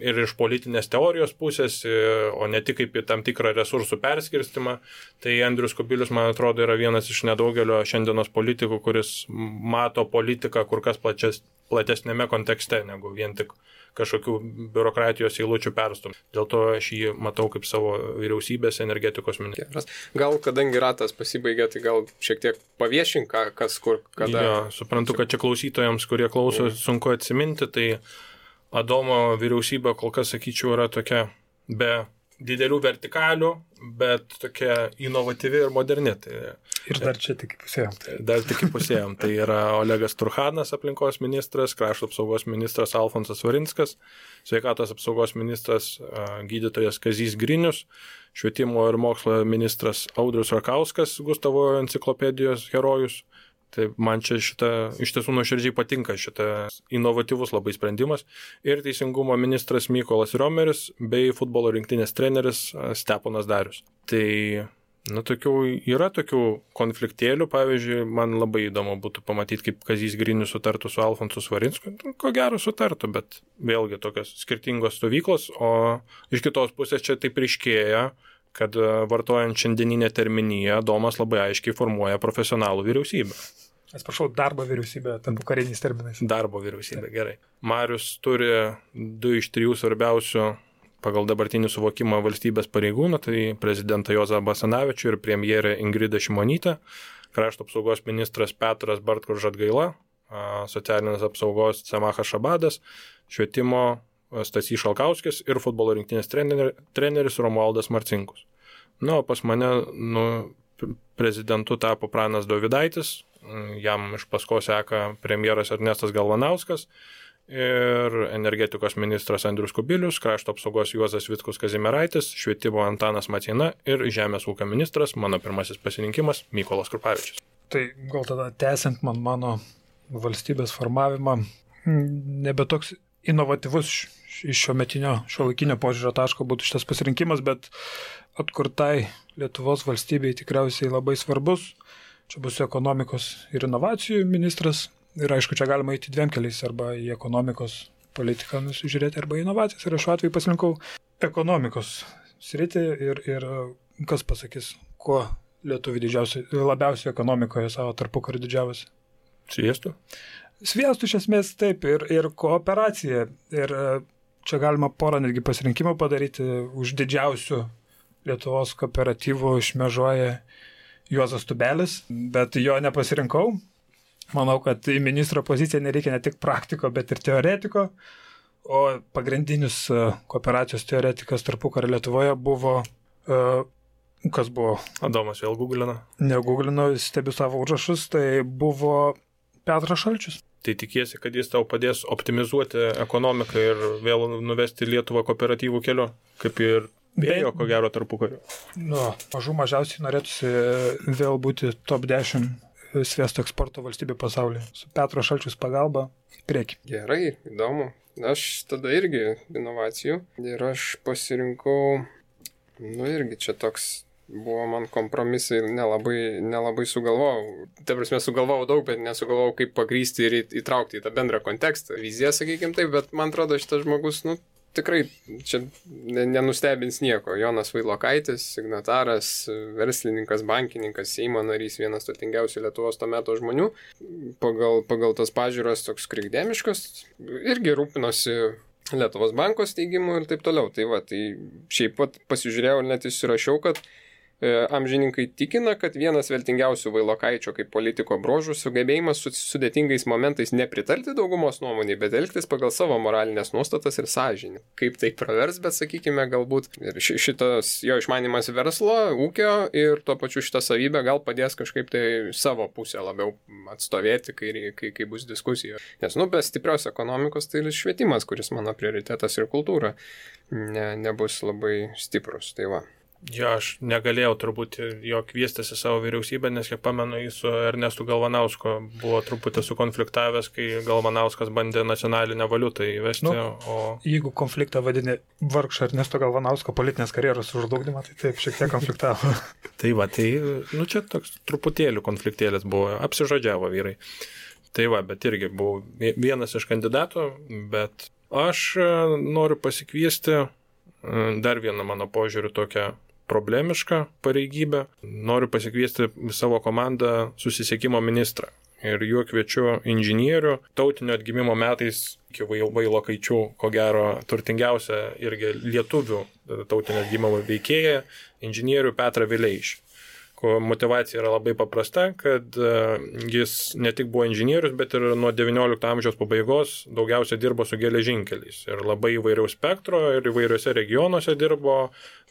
ir iš politinės teorijos pusės, o ne tik kaip į tam tikrą resursų perskirstimą. Tai Andrius Kubilius, man atrodo, yra vienas iš nedaugelio šiandienos politikų, kuris mato politiką kur kas platesnėme kontekste, negu vien tik kažkokių biurokratijos eilučių perstumti. Dėl to aš jį matau kaip savo vyriausybės energetikos ministras. Gal, kadangi ratas pasibaigė, tai gal šiek tiek paviešink, kas kur, kada. Jo, suprantu, kad čia klausytojams, kurie klauso, sunku atsiminti, tai Adomo vyriausybė kol kas, sakyčiau, yra tokia be didelių vertikalių, bet tokia inovatyvi ir moderni. Tai, ir dar čia tik pusėjom. Tai yra Olegas Turchanas, aplinkos ministras, krašto apsaugos ministras Alfonsas Varinskas, sveikatos apsaugos ministras gydytojas Kazys Grinius, švietimo ir mokslo ministras Audrius Rakauskas, Gustavo enciklopedijos herojus. Tai man čia iš tiesų nuoširdžiai patinka šitas inovatyvus labai sprendimas. Ir teisingumo ministras Mykolas Riomeris bei futbolo rinktinės treneris Steponas Darius. Tai yra tokių konfliktėlių, pavyzdžiui, man labai įdomu būtų pamatyti, kaip Kazys Grinius sutartų su Alfonsu Svarinsku. Ko gero sutartų, bet vėlgi tokios skirtingos stovyklos, o iš kitos pusės čia taip ryškėja, kad vartojant šiandieninę terminiją, Domas labai aiškiai formuoja profesionalų vyriausybę. Atsiprašau, darbo vyriausybė, tampu kariniais terminais. Darbo vyriausybė, gerai. Marius turi 2 iš 3 svarbiausių pagal dabartinį suvokimą valstybės pareigūnų, tai prezidentą Juozą Basanavičių ir premjerę Ingridą Šimonytę, krašto apsaugos ministras Petras Bartkus Žadgaila, socialinės apsaugos Semachas Šabadas, švietimo Stasys Šalkauskis ir futbolo rinktinės treneris Romualdas Marcinkus. O pas mane prezidentu tapo Pranas Dovydaitis, jam iš paskos seka premjeras Ernestas Galvanauskas ir energetikos ministras Andrius Kubilius, krašto apsaugos Juozas Vitkus Kazimieraitis, švietimo Antanas Maceina ir žemės ūkio ministras, mano pirmasis pasirinkimas, Mykolas Krupavičius. Tai gal tada tęsiant mano valstybės formavimą, nebe toks inovatyvus iš šiuolaikinio požiūrio taško būtų šitas pasirinkimas, bet atkurtai Lietuvos valstybei tikriausiai labai svarbus. Čia bus ekonomikos ir inovacijų ministras ir aišku, čia galima eiti 2 keliais, arba į ekonomikos politiką nusižiūrėti, arba į inovacijas. Ir aš šiuo atveju pasirinkau ekonomikos sritį ir kas pasakys, kuo lietuviai labiausiai ekonomikoje savo tarpukarį didžiavosi. Sviestų? Sviestų iš esmės taip ir kooperacija. Ir čia galima porą netgi pasirinkimų padaryti. Už didžiausių Lietuvos kooperatyvų šmėžuoja Juozas Tubelis, bet jo nepasirinkau. Manau, kad į ministro poziciją nereikia ne tik praktiko, bet ir teoretiko. O pagrindinis kooperacijos teoretikas tarpukario Lietuvoje buvo... Kas buvo? Adomas vėl googlino. Negooglino, stebiu savo užrašus, tai buvo Petras Šalčius. Tai tikiesi, kad jis tau padės optimizuoti ekonomiką ir vėl nuvesti Lietuvą kooperatyvų keliu, kaip ir vėjo, ko gero, tarpukariu. Mažiausiai norėtųsi vėl būti top 10 sviesto eksporto valstybė pasaulyje. Su Petro Šalčius pagalba, prieki. Gerai, įdomu. Aš tada irgi inovacijų ir aš pasirinkau, irgi čia toks buvo man kompromisai, nelabai sugalvojau. Ta prasme, sugalvojau daug, bet nesugalvojau, kaip pagrysti ir įtraukti į tą bendrą kontekstą. Viziją, sakykime taip, bet man atrodo, šitas žmogus, tikrai čia nenustebins nieko. Jonas Vailokaitis, signataras, verslininkas, bankininkas, Seimo narys, vienas turtingiausių Lietuvos to meto žmonių, pagal tas pažiūras toks krikdemiškas, irgi rūpinosi Lietuvos banko steigimu ir taip toliau. Tai šiaip pat pasižiūrėjau ir net įsirašiau, kad amžininkai tikina, kad vienas vertingiausių Vailokaičio kaip politiko bruožų sugebėjimas sudėtingais momentais nepritarti daugumos nuomonei, bet elgtis pagal savo moralinės nuostatas ir sąžinį. Kaip tai pravers, bet sakykime, galbūt ir šitas jo išmanimas verslo, ūkio ir tuo pačiu šitą savybę gal padės kažkaip tai savo pusę labiau atstovėti, kai bus diskusija. Nes, be stiprios ekonomikos tai ir švietimas, kuris mano prioritetas ir kultūra, nebus labai stiprus. Tai va. Jo, aš negalėjau turbūt jo kviestis į savo vyriausybę, nes kiek pamenu, jis su Ernestu Galvanausku buvo truputį sukonfliktavęs, kai Galvanauskas bandė nacionalinę valiutą įvesti. Jeigu konfliktą vadini vargšą Ernesto Galvanausko politinės karjeros užžlugdymą, tai taip, šiek tiek konfliktavo. Čia toks truputėlių konfliktėlis buvo, apsižodžiavo vyrai. Bet irgi buvau vienas iš kandidatų, bet aš noriu pasikviesti dar vieną mano požiūrių tokią problemišką pareigybę. Noriu pasikviesti savo komandą susisiekimo ministrą. Ir juo kviečiu inžinierių, tautinio atgimimo metais iki Vailokaičių, ko gero, turtingiausia irgi lietuvių tautinio atgimimo veikėja, inžinierių Petrą Vileišį. Motivacija yra labai paprasta, kad jis ne tik buvo inžinierius, bet ir nuo XIX amžiaus pabaigos daugiausia dirbo su geležinkeliais. Ir labai įvairiaus spektro ir įvairiuose regionuose dirbo,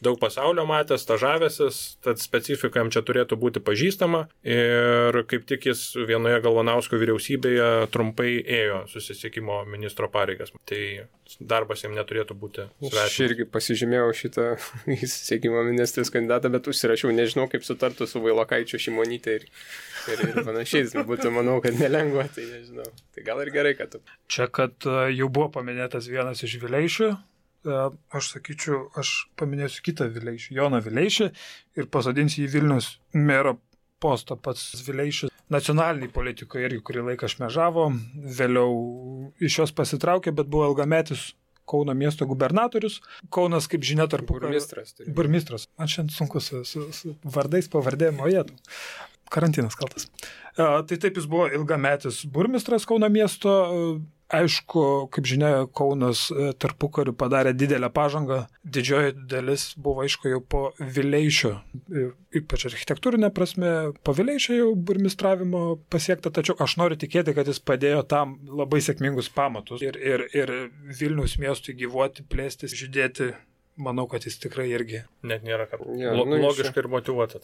daug pasaulio matęs, stažavęsis, tad specifika jam čia turėtų būti pažįstama. Ir kaip tik jis vienoje Galvanausko vyriausybėje trumpai ėjo susisiekimo ministro pareigas. Tai darbas jam neturėtų būti svetimas. Aš irgi pasižymėjau šitą susisiekimo ministrės kandidatą, bet užsirašiau, nežinau, kaip sutartų su Vailokaičiu, Šimonytė ir panašiais. Būtų, manau, kad nelengva, tai nežinau. Tai gal ir gerai, kad tu. Čia, kad jau buvo paminėtas vienas iš Vileišių, aš sakyčiau, aš paminėsiu kitą Vileišį, Joną Vileišį, ir pasodinsiu į Vilniaus mero postą. Pats Vileišis nacionaliniai politikoje irgi kurį laiką šmežavo, vėliau iš jos pasitraukė, bet buvo ilgametis Kauno miesto gubernatorius. Kaunas, kaip žinia, burmistras. Man šiandien sunku su vardais, pavardėm, o jėtų. Karantinas kaltas. Tai taip, jis buvo ilgametis burmistras Kauno miesto. Aišku, kaip žinia, Kaunas tarpukariu padarė didelę pažangą. Didžioji dalis buvo, aišku, jau po Vileišio, ypač architektūrinė prasme, po Vileišio jau burmistravimo pasiekta, tačiau aš noriu tikėti, kad jis padėjo tam labai sėkmingus pamatus ir Vilniaus miestui gyvuoti, plėstis, žydėti. Manau, kad jis tikrai irgi. Net nėra kad logiškai ir motyvuota.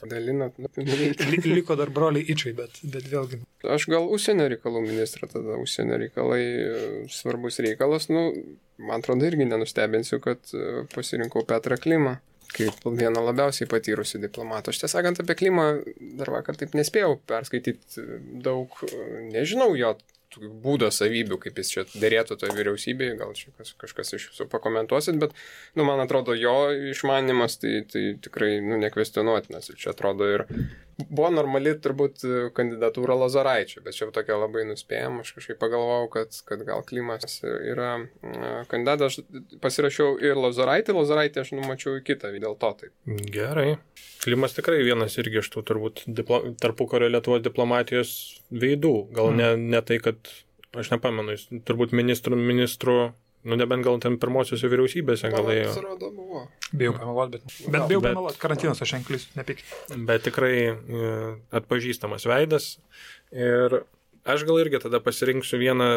Liko dar broliai Ičiai, bet vėlgi. Aš gal užsienio reikalų ministrą, tada užsienio reikalai svarbus reikalas. Man atrodo, irgi nenustebinsiu, kad pasirinkau Petrą Klimą kaip vieną labiausiai patyrusių diplomatų. Aš tiesą sakant, apie Klimą dar vakar taip nespėjau perskaityti daug, nežinau jo būdo savybių, kaip jis čia dėrėtų toje vyriausybėje, gal čia kažkas iš jūsų pakomentuosit, bet, man atrodo, jo išmanimas tai tikrai, nekvestionuotinas. Ir čia atrodo ir buvo normali turbūt kandidatūra Lozoraičio, bet čia tokia labai nuspėjama. Aš kažkaip pagalvojau, kad gal Klimas yra kandidatas. Aš pasirašiau ir Lozoraitį aš numačiau į kitą, dėl to taip. Gerai. Klimas tikrai vienas irgi iš tų turbūt tarpukario Lietuvos diplomatijos veidų. Gal ne tai, kad, aš nepamenu, jis turbūt ministrų, nebent gal ten pirmosiuose vyriausybėse galėjo. Bijau pameluoti, bet bijau pameluoti, karantinas, aš enklis, nepykit. Bet tikrai atpažįstamas veidas. Ir aš gal irgi tada pasirinksiu vieną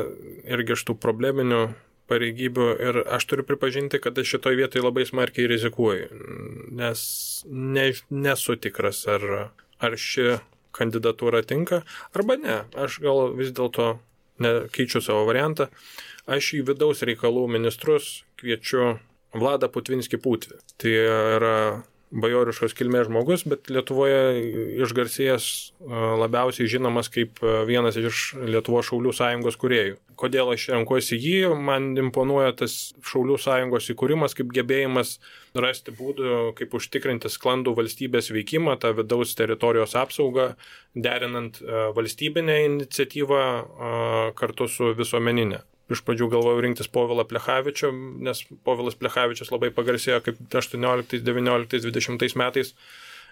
irgi iš tų probleminių pareigybių ir aš turiu pripažinti, kad aš šitoj vietoj labai smarkiai rizikuoju, nes nesu tikras, ar ši kandidatūra tinka, arba ne. Aš gal vis dėlto keičiu savo variantą. Aš į vidaus reikalų ministrus kviečiu Vladą Putvinskį Putvį. Tai yra bajoriškos kilmės žmogus, bet Lietuvoje išgarsėjęs labiausiai žinomas kaip vienas iš Lietuvos Šaulių sąjungos kūrėjų. Kodėl aš renkuosi jį? Man imponuoja tas Šaulių sąjungos įkūrimas kaip gebėjimas rasti būdų, kaip užtikrinti sklandų valstybės veikimą, tą vidaus teritorijos apsaugą, derinant valstybinę iniciatyvą kartu su visuomeninė. iš pradžių galvojau rinktis Povilą Plechavičių, nes Povilas Plechavičius labai pagarsėjo kaip 18, 19, 20 metais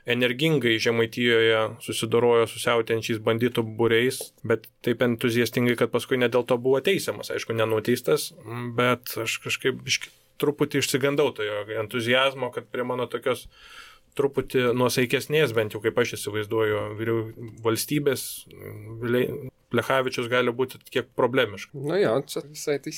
energingai Žemaitijoje susidorojo su siautėjančiais banditų būriais, bet taip entuziastingai, kad paskui ne dėl to buvo teisiamas, aišku, nenuteistas, bet aš kažkaip truputį išsigandau to jo entuzijazmo, kad prie mano tokios truputį nuosaikesnės, bent jau kaip aš įsivaizduoju, valstybės Plechavičius gali būti kiek problemiškas. Nu jo, čia visai tai.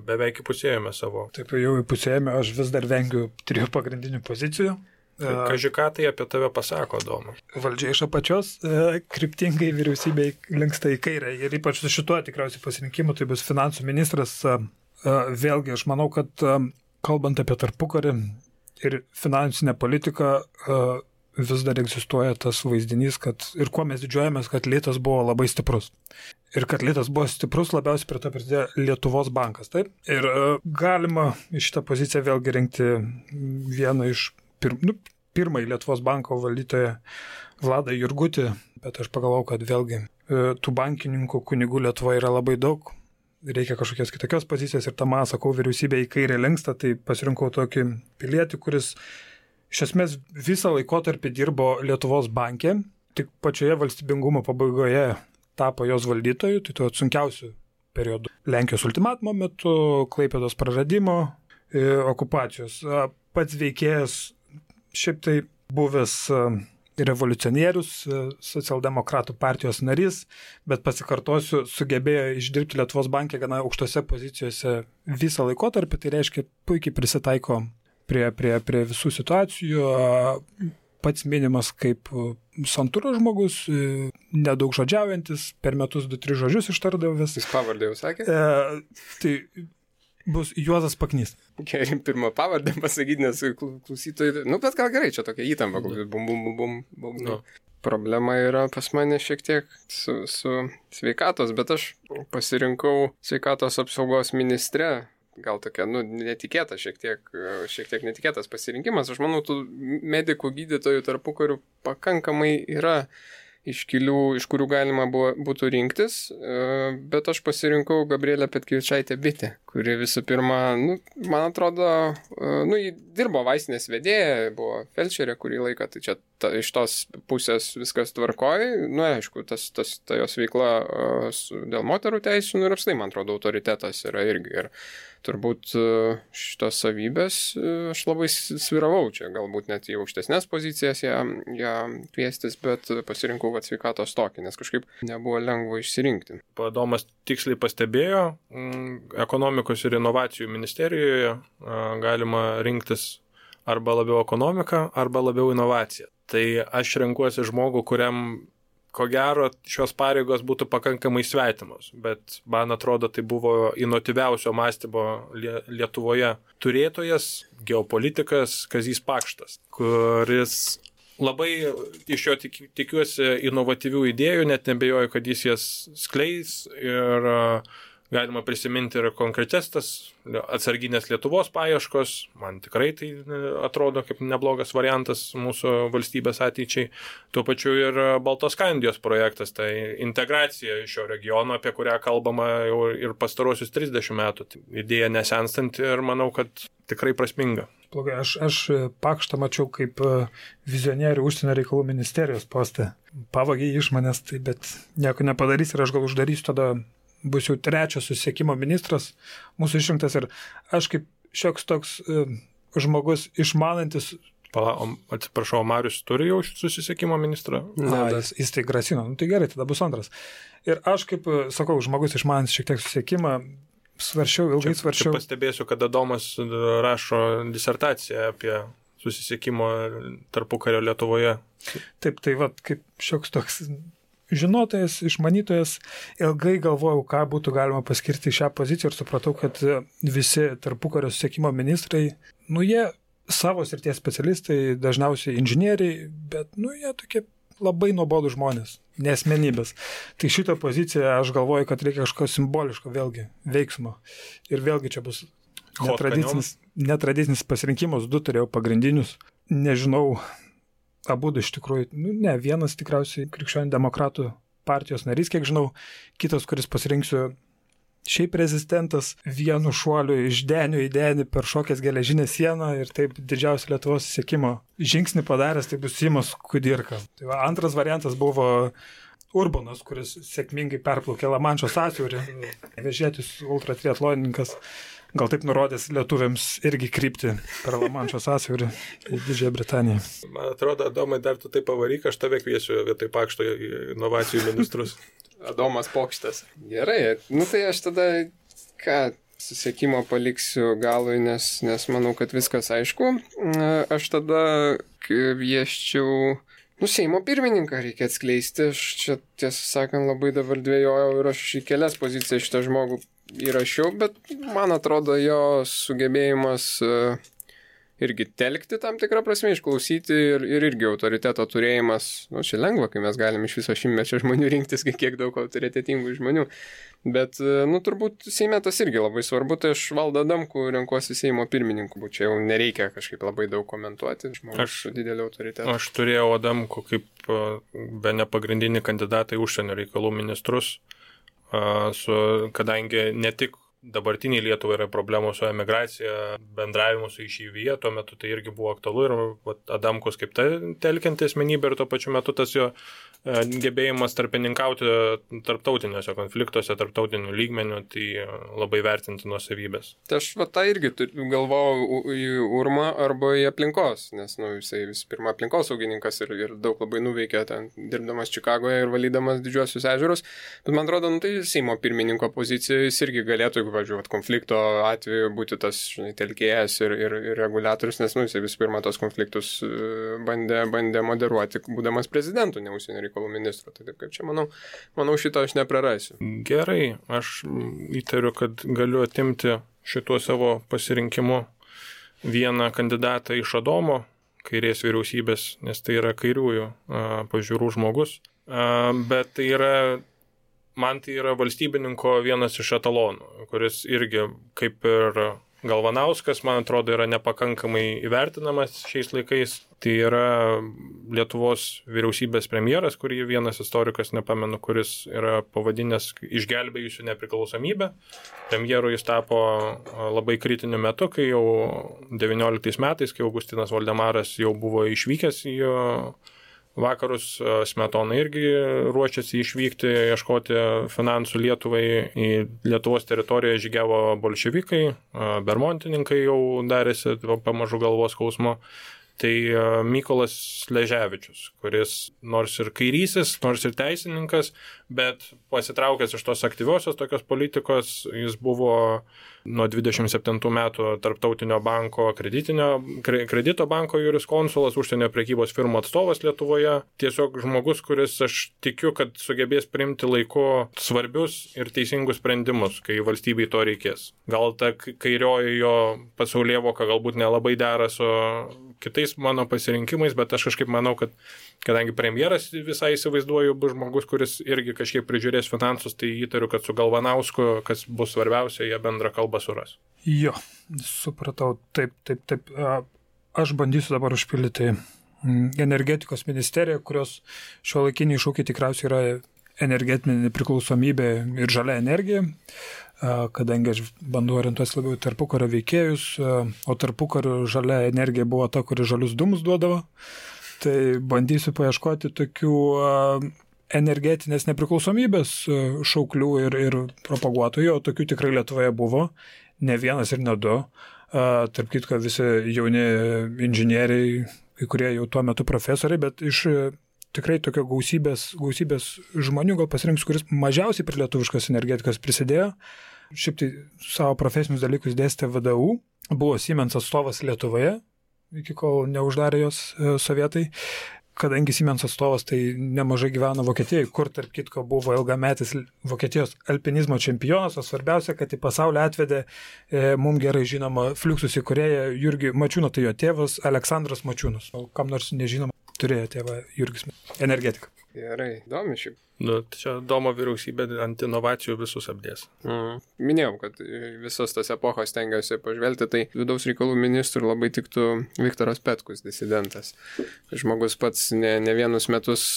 Beveik įpusėjome savo. Taip, jau įpusėjome, aš vis dar vengiu 3 pagrindinių pozicijų. Kažką tai apie tave pasako, Doma. Valdžia iš apačios, kryptingai vyriausybei linksta į kairę ir ypač su šituo tikriausiai pasirinkimu, tai bus finansų ministras. Vėlgi, aš manau, kad kalbant apie tarpukarį ir finansinę politiką, vis dar egzistuoja tas vaizdinys, kad ir kuo mes didžiuojamės, kad litas buvo labai stiprus. Ir kad litas buvo stiprus, labiausiai prie to prisidėjo Lietuvos bankas, taip? Ir galima iš šitą poziciją vėlgi rinkti vieną iš pirmąjį Lietuvos banko valdytoją Vladą Jurgutį, bet aš pagalvojau, kad vėlgi tų bankininkų kunigų Lietuvoje yra labai daug, reikia kažkokios kitokios pozicijos ir tamą, sakau, vyriausybė į kairę linksta, tai pasirinkau tokį pilietį, kuris iš esmės visą laikotarpį dirbo Lietuvos banke, tik pačioje valstybingumo pabaigoje tapo jos valdytoju, tai tuo sunkiausių periodų. Lenkijos ultimatumo metu, Klaipėdos praradimo, okupacijos. Pats veikėjas šiaip tai buvęs revoliucionierius, socialdemokratų partijos narys, bet pasikartosiu, sugebėjo išdirbti Lietuvos banke gana aukštose pozicijose visą laikotarpį, tai reiškia puikiai prisitaiko prie visų situacijų, pats minimas kaip santūros žmogus, nedaug žodžiaujantis, per metus 2-3 žodžius ištardavęs. Jis pavardę jau sakė? Tai bus Juozas Paknys. Gerai, pirmą pavardę pasakyti, nes klausytojai, bet gal gerai, čia tokia įtampa, bum. No. Problema yra pas mane šiek tiek su sveikatos, bet aš pasirinkau sveikatos apsaugos ministre, gal tokia, netikėta, šiek tiek netikėtas pasirinkimas. Aš manau, tų medikų gydytojų tarpukarių pakankamai yra iškilių, iš kurių galima būtų rinktis, bet aš pasirinkau Gabrielę Petkevičaitę Bitę, kuri visų pirma, man atrodo, ji dirbo vaistinės vedėja, buvo felčerė kurį laiką, tai čia iš tos pusės viskas tvarkoj, aišku, ta jos veikla dėl moterų teisių, ir apstai, man atrodo, autoritetas yra irgi. Ir turbūt šitos savybės aš labai sviravau čia, galbūt net į aukštesnės pozicijas ją kviestis, bet pasirinkau sveikatos tokį, nes kažkaip nebuvo lengva išsirinkti. Domas tiksliai pastebėjo, ekonomikos ir inovacijų ministerijoje galima rinktis arba labiau ekonomiką, arba labiau inovaciją. Tai aš renkuosi žmogų, kuriam ko gero šios pareigos būtų pakankamai svetimos, bet man atrodo, tai buvo inovatyviausio mąstymo Lietuvoje turėtojas, geopolitikas Kazys Pakštas, kuris labai iš jo tikiuosi inovatyvių idėjų, net nebejoju, kad jis jas skleis ir galima prisiminti ir konkrečias tas atsarginės Lietuvos paieškos. Man tikrai tai atrodo kaip neblogas variantas mūsų valstybės ateičiai. Tuo pačiu ir Baltoskandijos projektas, tai integracija iš šio regiono, apie kurią kalbama jau ir pastarosius 30 metų. Idėja nesenstanti ir manau, kad tikrai prasminga. Blogai, aš Pakštą mačiau kaip vizionierių užsienio reikalų ministerijos postą. Pavagė iš manęs, tai bet nieko nepadarys ir aš gal uždarysiu tada. Bus jau 3 susisiekimo ministras mūsų išrinktas ir aš kaip šioks toks žmogus išmanantis. Atsiprašau, Marius turi jau susisiekimo ministrą? Jis tai grasino, tai gerai, tada bus antras. Ir aš kaip, sakau, žmogus išmanantis šiek tiek susisiekimą, ilgai svarsčiau. Čia pastebėsiu, kad Adomas rašo disertaciją apie susisiekimo tarpukario Lietuvoje. Taip, tai kaip šioks toks žinotojas, išmanytojas, ilgai galvojau, ką būtų galima paskirti šią poziciją ir supratau, kad visi tarpukario susisiekimo ministrai, jie savo srities specialistai, dažniausiai inžinieriai, bet, jie tokie labai nuobodų žmonės, nesmenybės. Tai šitą poziciją aš galvoju, kad reikia kažko simboliško vėlgi, veiksmo. Ir vėlgi čia bus netradicinis pasirinkimas, 2 turėjau pagrindinius, nežinau, abu iš tikrųjų, vienas tikriausiai Krikščionių demokratų partijos narys, kiek žinau, kitas, kuris pasirinksiu šiaip rezistentas, vienu šuoliu iš denio į denį per šokęs geležinę sieną ir taip didžiausią Lietuvos siekimo žingsnį padaręs, tai bus Simas Kudirka. Tai va, antras variantas buvo Urbanas, kuris sėkmingai perplaukė Lamanšo sąsiaurį, vežėtis ultratriatlonininkas. Gal taip nurodęs lietuviams irgi krypti per Lamanšo sąsiaurį į Didžiąją Britaniją. Man atrodo, Adomai, dar tu taip pavaryk, aš tave kviesiu vietoj Pakšto inovacijų ministrus. Adomas Pokštas. Gerai, tai aš tada susiekimo paliksiu galui, nes manau, kad viskas aišku. Aš tada kvieščiau, Seimo pirmininką reikia atskleisti. Aš čia, tiesą sakant, labai dabar dvejojau ir aš į kelias pozicijas šitą žmogų įrašiau, bet man atrodo jo sugebėjimas irgi telkti tam tikrą prasme, išklausyti ir irgi autoriteto turėjimas. Čia lengva, kai mes galim iš viso šimtmečio žmonių rinktis, kiek daug autoritetingų žmonių. Bet, turbūt Seime tas irgi labai svarbu, tai aš Valdą Adamkų renkuosi Seimo pirmininku, čia jau nereikia kažkaip labai daug komentuoti, žmogus su dideliu autoritetu. Aš turėjau Adamkų kaip be nepagrindinį kandidatą į užsienio reikalų ministrus, kadangi ne tik dabartiniai Lietuvai yra problemų su emigracija, bendravimu su išeivyje, tuo metu tai irgi buvo aktualu ir Adamkus kaip telkianti asmenybė ir tuo pačiu metu tas jo gebėjimas tarpininkauti tarptautiniuose konfliktuose, tarptautinių lygmenių, tai labai vertintinos savybės. Tai aš tą irgi galvojau į Urmą arba į aplinkos, nes jisai vis pirma aplinkosaugininkas ir daug labai nuveikė ten, dirbdamas Čikagoje ir valydamas didžiuosius ežerus, bet man atrodo, tai Seimo pirmininko pozicijoje jis irgi galėtų, jeigu važiuoti konflikto atveju, būti tas telkėjas ir reguliatorius, nes jisai vis pirma tos konfliktus bandė moderuoti, būdamas prezidentu, ne užsienio reikalų ministru. Tai taip kaip čia, manau šito aš neprarasiu. Gerai, aš įtariu, kad galiu atimti šituo savo pasirinkimu vieną kandidatą iš Adomo, kairės vyriausybės, nes tai yra kairiųjų pažiūrų žmogus, bet tai yra man tai yra valstybininko vienas iš etalonų, kuris irgi kaip ir Galvanauskas, man atrodo, yra nepakankamai įvertinamas šiais laikais. Tai yra Lietuvos vyriausybės premjeras, kurį vienas istorikas, nepamenu, kuris yra pavadinęs išgelbėjusių nepriklausomybę. Premjeru jis tapo labai kritiniu metu, kai jau 19 metais, kai Augustinas Voldemaras jau buvo išvykęs į vakarus, Smetona irgi ruošiasi išvykti, ieškoti finansų Lietuvai. Į Lietuvos teritoriją žygiavo bolševikai, bermontininkai jau darėsi pamažu galvos skausmo. Tai Mykolas Sleževičius, kuris nors ir kairysis, nors ir teisininkas, bet pasitraukęs iš tos aktyviosios tokios politikos, jis buvo nuo 27 metų Tarptautinio banko kredito banko juriskonsulas, užsienio prekybos firmų atstovas Lietuvoje. Tiesiog žmogus, kuris aš tikiu, kad sugebės priimti laiku svarbius ir teisingus sprendimus, kai valstybei to reikės. Gal ta kairioji jo pasaulėvoka galbūt nelabai dera su kitais mano pasirinkimais, bet aš kažkaip manau, kad kadangi premjeras visai įsivaizduoju bus žmogus, kuris irgi kažkiek prižiūrės finansus, tai įtariu, kad su Galvanausku, kas bus svarbiausia, jie bendrą kalbą suras. Jo, supratau, taip. Aš bandysiu dabar užpildyti energetikos ministeriją, kurios šiuolaikiniai iššūkiai tikriausiai yra energetinė nepriklausomybė ir žalia energija, kadangi aš bandau orientuotis labiau tarpukario veikėjus, o tarpukario žalia energija buvo ta, kuri žalius dūmus duodavo. Tai bandysiu paieškoti tokių energetinės nepriklausomybės šauklių ir propaguotojų, o tokių tikrai Lietuvoje buvo, ne vienas ir ne du. Tarp kitko visi jauni inžinieriai, kai kurie jau tuo metu profesoriai, bet iš tikrai tokio gausybės žmonių gal pasirinksiu, kuris mažiausiai prie lietuviškos energetikos prisidėjo. Šiaip tai savo profesinius dalykus dėstė VDU, buvo Siemens atstovas Lietuvoje, iki kol neuždarė jos sovietai. Kadangi Siemens atstovas tai nemažai gyveno Vokietijoje, kur tarp kitko buvo ilgametis Vokietijos alpinizmo čempionas, o svarbiausia, kad į pasaulį atvedė mums gerai žinoma Fluxus įkūrėją Jurgį Mačiūną, tai jo tėvas Aleksandras Mačiūnas. O kam nors nežinoma? turėjo tėvą Jurgis, energetika. Gerai, įdomi šiaip. Nu, čia Domo vyriausybė ant inovacijų visus apdės. Minėjau, kad visos tas epochos tengiausi pažvelgti, tai vidaus reikalų ministrų labai tiktų Viktoras Petkus, disidentas. Žmogus pats ne vienus metus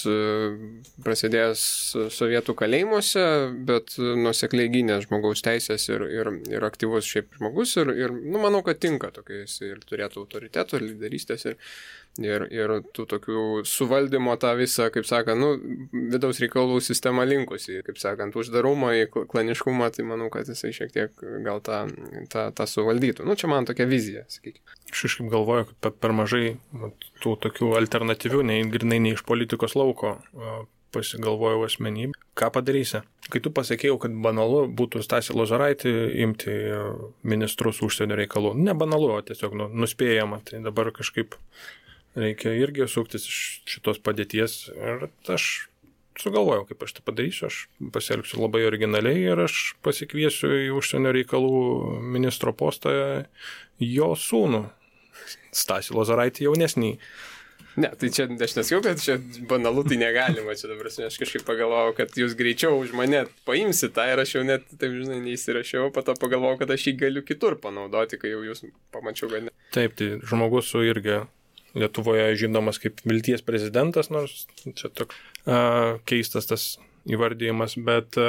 prasidėjęs sovietų kalėjimuose, bet nuosekliai gynė žmogaus teisės ir aktyvus šiaip žmogus ir manau, kad tinka tokiais ir turėtų autoriteto, lyderystės ir tų tokių suvaldymo tą visą, kaip sakant, vidaus reikalų sistema linkusi, kaip sakant, uždarumą į klaniškumą, tai manau, kad jisai šiek tiek gal tą suvaldytų. Čia man tokia vizija, sakykime. Aš kažkaip galvoju, kad per mažai tų tokių alternatyvių, grinai ne iš politikos lauko pasigalvojau asmenybę. Ką padarysi? Kai tu pasakėjau, kad banalu būtų Stasį Lozaraitį imti ministrus užsienio reikalų. Ne banalu, o tiesiog nuspėjama. Tai dabar kažkaip reikia irgi suktis iš šitos padėties. Ir aš sugalvojau, kaip aš tai padarysiu. Aš pasielgsiu labai originaliai ir aš pasikviesiu į užsienio reikalų ministro postą jo sūnų, Stasį Lozaraitį jaunesnį. Ne, tai čia aš nesakiau, kad čia banalu, tai negalima. Čia dabar aš kažkaip pagalvojau, kad jūs greičiau už mane paimsit tą ir aš jau net, taip žinai, neįsirašiau, po to pagalvojau, kad aš jį galiu kitur panaudoti, kai jau jūs pamačiau, kad ne. Taip, tai žmogus su irgi Lietuvoje žinomas kaip vilties prezidentas, nors čia toks keistas tas įvardyjimas, bet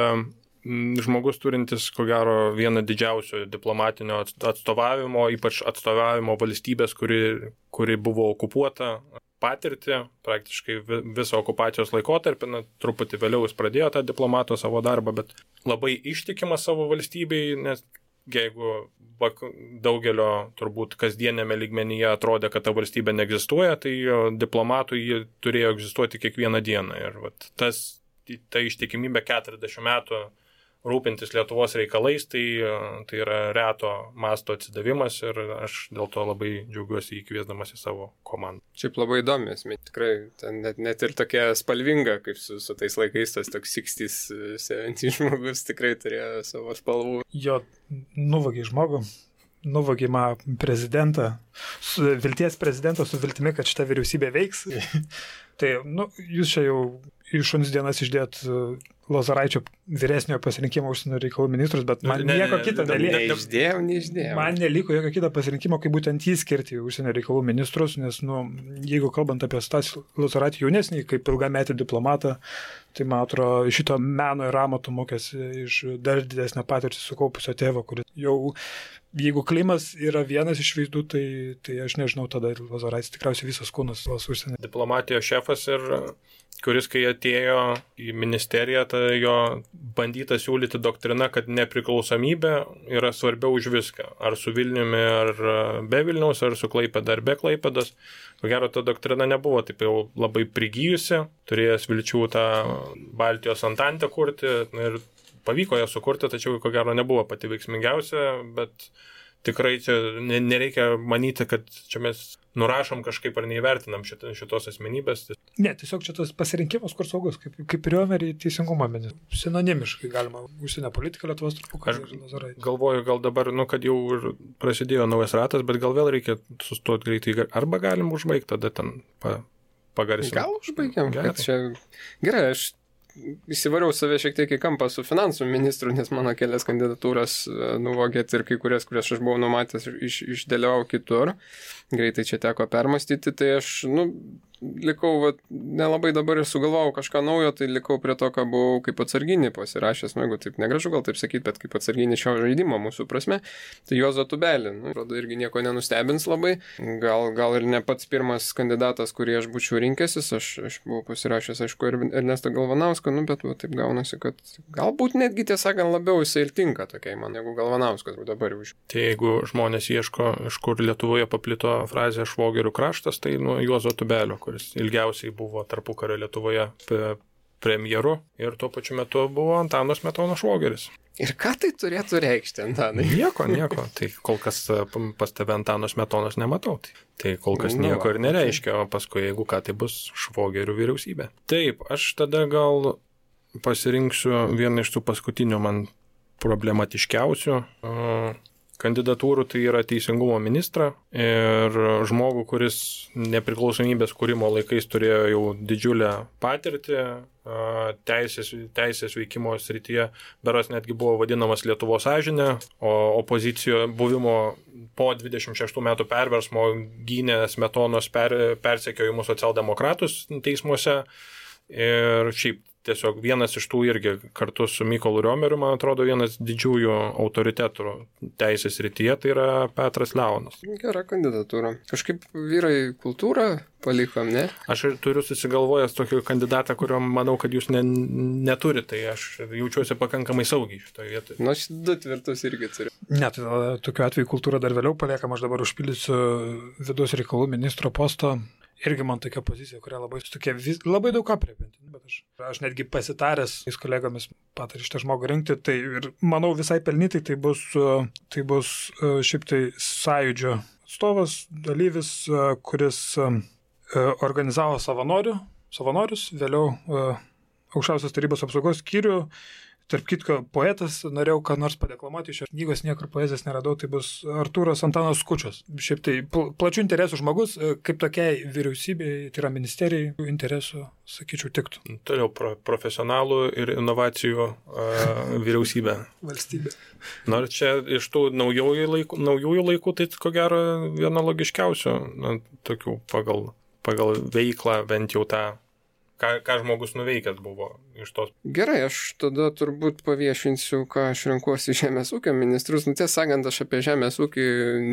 žmogus turintis, ko gero, vieną didžiausių diplomatinio atstovavimo, ypač atstovavimo valstybės, kuri buvo okupuota, patirtį, praktiškai visą okupacijos laikotarpį, truputį vėliau jis pradėjo tą diplomato savo darbą, bet labai ištikimas savo valstybei, nes jeigu daugelio turbūt kasdienėme lygmenyje atrodė, kad ta valstybė neegzistuoja, tai diplomatui ji turėjo egzistuoti kiekvieną dieną. Ir ta ištikimybė 40 metų rūpintis Lietuvos reikalais, tai yra reto masto atsidavimas ir aš dėl to labai džiaugiuosi įkviesdamas į savo komandą. Šiaip labai įdomis, tikrai net ir tokia spalvinga, kaip su tais laikais, tas toks 60s, 70s žmogus tikrai turėjo savo spalvų. Jo, nuvagė žmogų, nuvagė prezidentą, vilties prezidentą su viltimi, kad šita vyriausybė veiks. Tai, jūs čia jau iš šuns dienas išdėt Lozaraičio vyresniojo pasirinkimo užsienio reikalų ministrus, bet man nieko kito neliko. Neišdėjau. Man neliko jokio kito pasirinkimo, kaip būtent jį skirti užsienio reikalų ministrus, nes, jeigu kalbant apie Stasį Lozaraitį jaunesnį, kaip ilgametį diplomatą, tai, man atrodo, šito meno ir amato mokėsi iš dar didesnę patirtį sukaupusio tėvo, kuris jau, jeigu Klimas yra vienas iš veizdų, tai aš nežinau, tada Lozaraitis tikriausiai visas kūnas užsienio. Diplomatijos šefas ir kuris, kai atėjo į ministeriją, tai jo bandyta siūlyti doktrina, kad nepriklausomybė yra svarbiau už viską. Ar su Vilniumi, ar be Vilniaus, ar su Klaipėda, ar be Klaipėdos. Ko gero, ta doktrina nebuvo taip jau labai prigijusi, turėjęs vilčių tą Baltijos antantę kurti ir pavyko ją sukurti, tačiau ko gero nebuvo pati veiksmingiausia, bet tikrai čia nereikia manyti, kad čia mes nurašom kažkaip ar neįvertinam šitos asmenybės. Ne, tiesiog čia tas pasirinkimas, kur saugus, kaip Riomerį teisingumo ministrą. Sinonimiškai galima užsienio politiką Lietuvos tarpukario ir Lozaraitį. Galvoju, gal dabar, kad jau prasidėjo naujas ratas, bet gal vėl reikia sustoti greitai. Arba galim užbaigti, tada ten pagarsinti. Gal užbaigiam? Gerai, aš įsivariau save šiek tiek į kampą su finansų ministru, nes mano kelias kandidatūras nuvogėt ir kai kurias aš buvau numatęs, išdėliau kitur. Greitai čia teko permastyti, tai aš, likau, nelabai dabar ir sugalvojau kažką naujo, tai likau prie to, ką buvau kaip atsarginį pasirašęs, jeigu taip negražu gal taip sakyti, bet kaip atsarginį šio žaidimo mūsų prasme, tai Juozą Tubelį. Rodo, irgi nieko nenustebins labai. Gal ir ne pats pirmas kandidatas, kurį aš būčiau rinkęsis, aš buvau pasirašęs, aišku, ir Ernestą Galvanauską, bet taip gaunasi, kad galbūt netgi tiesąkant labiau jisai ir tinka tokiai man, negu Galvanauskas dabar už. Tai jeigu žmonės ieško, iš kur Lietuvoje paplito frazė švogerių kraštas, tai Juozo Tubelio, kuris ilgiausiai buvo tarpukario Lietuvoje premjeru ir tuo pačiu metu buvo Antano Smetono švogeris. Ir ką tai turėtų reikšti, Antanai? Nieko. Tai kol kas pas tave Antano Smetonos nematau. Tai kol kas nieko ir nereiškia, o paskui, jeigu ką, tai bus švogerių vyriausybė. Taip, aš tada gal pasirinksiu vieną iš tų paskutinių man problematiškiausių kandidatūrų, tai yra teisingumo ministrą ir žmogų, kuris nepriklausomybės kūrimo laikais turėjo jau didžiulę patirtį teisės veikimo srityje, beras netgi buvo vadinamas Lietuvos sąžinė, o opozicijoje buvimo po 26 metų perversmo gynė Smetonos persekiojimus socialdemokratus teismuose ir šiaip tiesiog vienas iš tų irgi kartu su Mykolu Riomeriu, man atrodo, vienas didžiųjų autoritetų teisės srityje, tai yra Petras Leonas. Gera kandidatūra. Kažkaip vyrai kultūrą palikom, ne? Aš ir turiu susigalvojęs tokį kandidatą, kurio manau, kad jūs neturite, tai aš jaučiuosi pakankamai saugiai šitoje vietoje. Nu, aš 2 tvirtus irgi turiu. Ne, tai tokiu atveju kultūra dar vėliau paliekam, aš dabar užpildysiu vidaus reikalų ministro posto. Irgi man tokia pozicija, kurią labai daug aprėpinti, bet aš netgi pasitaręs su kolegomis patarė šitą žmogų rinkti, tai ir manau visai pelnytai tai bus šiaip tai sąjūdžio atstovas, dalyvis, kuris organizavo savanorius, vėliau Aukščiausios tarybos apsaugos skyrių. Tarp kitko, poetas, norėjau ką nors padeklamuoti, iš šios knygos niekur poezijos neradau, tai bus Artūras Antanas Skučas. Šiaip tai plačių interesų žmogus, kaip tokiai vyriausybei, tai yra ministerijai, interesų, sakyčiau, tiktų. Toliau profesionalų ir inovacijų vyriausybė. Valstybė. Nors čia iš tų naujųjų laikų, tai ko gero viena logiškiausių, tokių pagal veiklą bent jau tą. Ką žmogus nuveikęs buvo iš tos. Gerai, aš tada turbūt paviešinsiu, ką aš renkuosi žemės ūkio ministrus. Tiesą sakant, aš apie žemės ūkį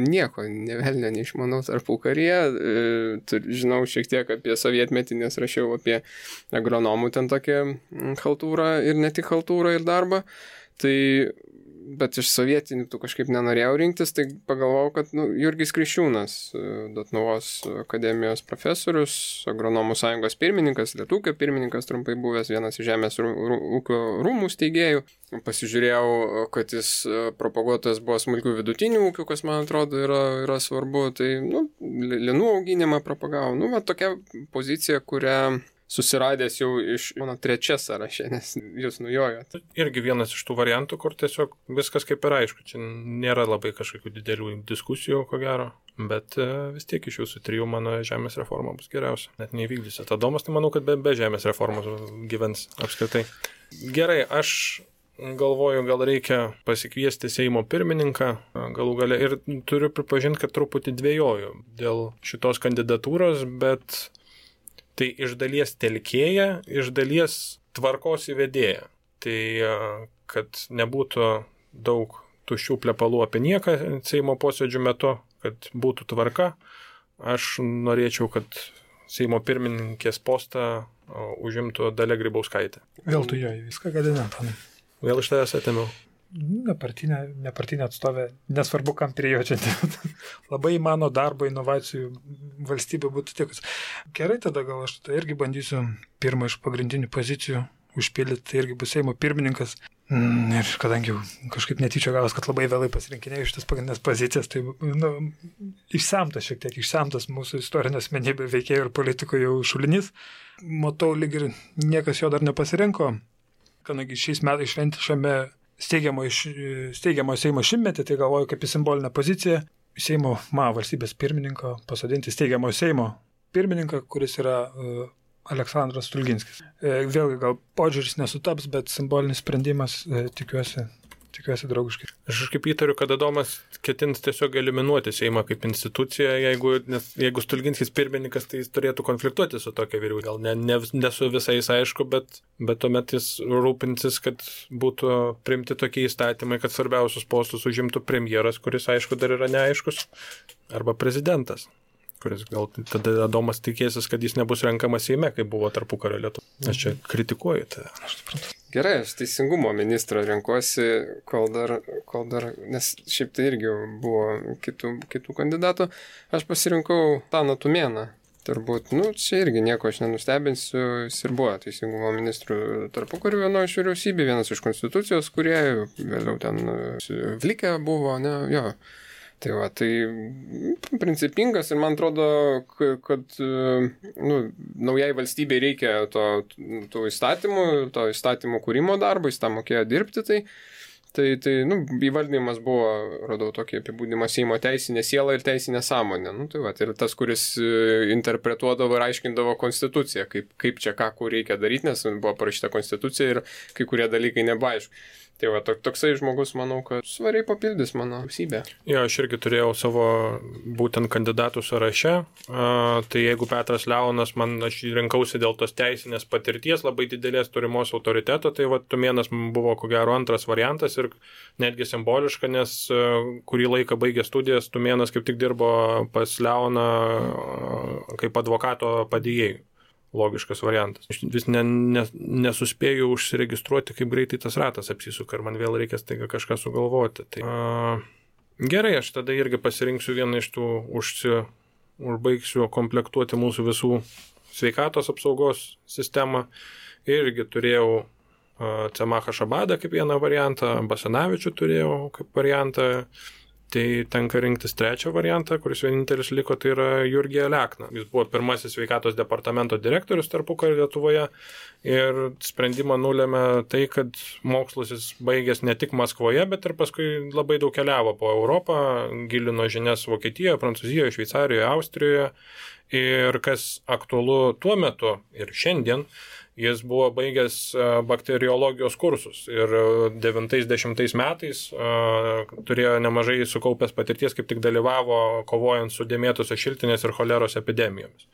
nieko nevelnio neišmanau tarpukaryje. Žinau šiek tiek apie sovietmetį, nes rašiau apie agronomų ten tokią chaltūrą ir ne tik chaltūrą ir darbą. Bet iš sovietinių tų kažkaip nenorėjau rinktis, tai pagalvojau, kad Jurgis Kriščiūnas, Dotnuvos akademijos profesorius, agronomų sąjungos pirmininkas, Lietūkio pirmininkas, trumpai buvęs vienas iš žemės ūkio rūmų steigėjų. Pasižiūrėjau, kad jis propaguotojas buvo smulkių vidutinių ūkių, kas man atrodo yra svarbu, tai linų auginimą propagavo. Tokia pozicija, kurią susiradęs jau iš mano 3 sąraše, nes jūs nujojot. Irgi vienas iš tų variantų, kur tiesiog viskas kaip ir aišku. Čia nėra labai kažkokių didelių diskusijų, ko gero, bet vis tiek iš jūsų 3 mano žemės reforma bus geriausia. Net neįvykdysi. Tadomas, tai manau, kad be žemės reformos gyvens apskritai. Gerai, aš galvoju, gal reikia pasikviesti Seimo pirmininką galų gale ir turiu pripažinti, kad truputį dvejoju dėl šitos kandidatūros, bet tai iš dalies telkėja, iš dalies tvarkos įvedėja. Tai kad nebūtų daug tuščių plepalų apie nieką Seimo posėdžių metu, kad būtų tvarka, aš norėčiau, kad Seimo pirmininkės postą užimtų Dalia Grybauskaitė. Vėl tu jo viską gadinė, Antanai. Vėl iš tavęs atėmiau. Nepartinė atstovė, nesvarbu, kam prie jo čia. Labai mano darbo inovacijų valstybė būtų tikus. Gerai, tada gal aš irgi bandysiu pirmą iš pagrindinių pozicijų užpildyti, tai irgi bus Seimo pirmininkas. Ir kadangi kažkaip netyčia gavas, kad labai vėlai pasirinkinėjau šitas pagrindinės pozicijas, tai išsemtas mūsų istorinė asmenybė veikėjų ir politikų jau šulinys. Matau, lyg ir niekas jo dar nepasirinko, kadangi šiais metais šventėme steigiamo Seimo šimtmetį, tai galvoju kaip į simbolinę poziciją Seimo valstybės pirmininko pasodinti steigiamo Seimo pirmininką, kuris yra Aleksandras Stulginskis. Vėlgi gal požiūris nesutaps, bet simbolinis sprendimas tikiuosi draugiškai. Aš kaip įtariu, kad Adomas ketins tiesiog eliminuoti Seimą kaip instituciją, jeigu Stulginskis pirmininkas, tai jis turėtų konfliktuoti su tokia vyriausybė. Gal ne su visais aišku, bet tuomet jis rūpinsis, kad būtų priimti tokie įstatymai, kad svarbiausius postus užimtų premjeras, kuris aišku dar yra neaiškus, arba prezidentas, kuris gal tada Adomas tikėsis, kad jis nebus renkamas Seime, kaip buvo tarpukario Lietuvoje. Aš čia kritikuoju tai. Aš suprantu. Gerai, aš teisingumo ministrą renkuosi, kol dar, nes šiaip tai irgi buvo kitų kandidatų. Aš pasirinkau Taną Tumėną. Turbūt, čia irgi nieko aš nenustebinsiu, jis ir buvo teisingumo ministrų tarpukariu vienoje iš vyriausybė, vienas iš konstitucijos kūrėjų, vėliau ten Vlikė buvo, jo. Tai principingas ir man atrodo, kad naujai valstybei reikia tų įstatymų, to įstatymų kūrimo darbo, jis tą mokėjo dirbti, Tai įvardinimas buvo, radau tokį apibūdimą, Seimo teisinė siela ir teisinė sąmonė. Tai ir tas, kuris interpretuodavo ir aiškindavo konstituciją, kaip čia ką, kur reikia daryti, nes buvo parašyta konstitucija ir kai kurie dalykai nebeaišku. Tai toksai žmogus, manau, kad svariai papildys mano vyriausybę. Jo, aš irgi turėjau savo būtent kandidatų sąraše. Tai jeigu Petras Leonas, aš rinkausi dėl tos teisinės patirties, labai didelės turimos autoriteto, tai Tumėnas buvo ko gero antras variantas ir netgi simboliška, nes kurį laiką baigė studijas, Tumėnas kaip tik dirbo pas Leoną kaip advokato padėjėjų. Logiškas variantas. Aš vis nesuspėjau užsiregistruoti, kaip greitai tas ratas apsisuka ir man vėl reikės taiga kažką sugalvoti. Tai, gerai, aš tada irgi pasirinksiu vieną iš tų, užbaigsiu komplektuoti mūsų visų sveikatos apsaugos sistemą. Irgi turėjau Cemachą Šabadą kaip vieną variantą, Basanavičių turėjau kaip variantą. Tai tenka rinktis trečią variantą, kuris vienintelis liko, tai yra Jurgį Alekną. Jis buvo pirmasis sveikatos departamento direktorius tarpukario Lietuvoje ir sprendimą nulėmė tai, kad mokslus jis baigęs ne tik Maskvoje, bet ir paskui labai daug keliavo po Europą, gilino žinias Vokietijoje, Prancūzijoje, Šveicarijoje, Austrijoje. Ir kas aktualu tuo metu ir šiandien, jis buvo baigęs bakteriologijos kursus ir 90 metais turėjo nemažai sukaupęs patirties, kaip tik dalyvavo kovojant su dėmėtosios šiltinės ir choleros epidemijomis.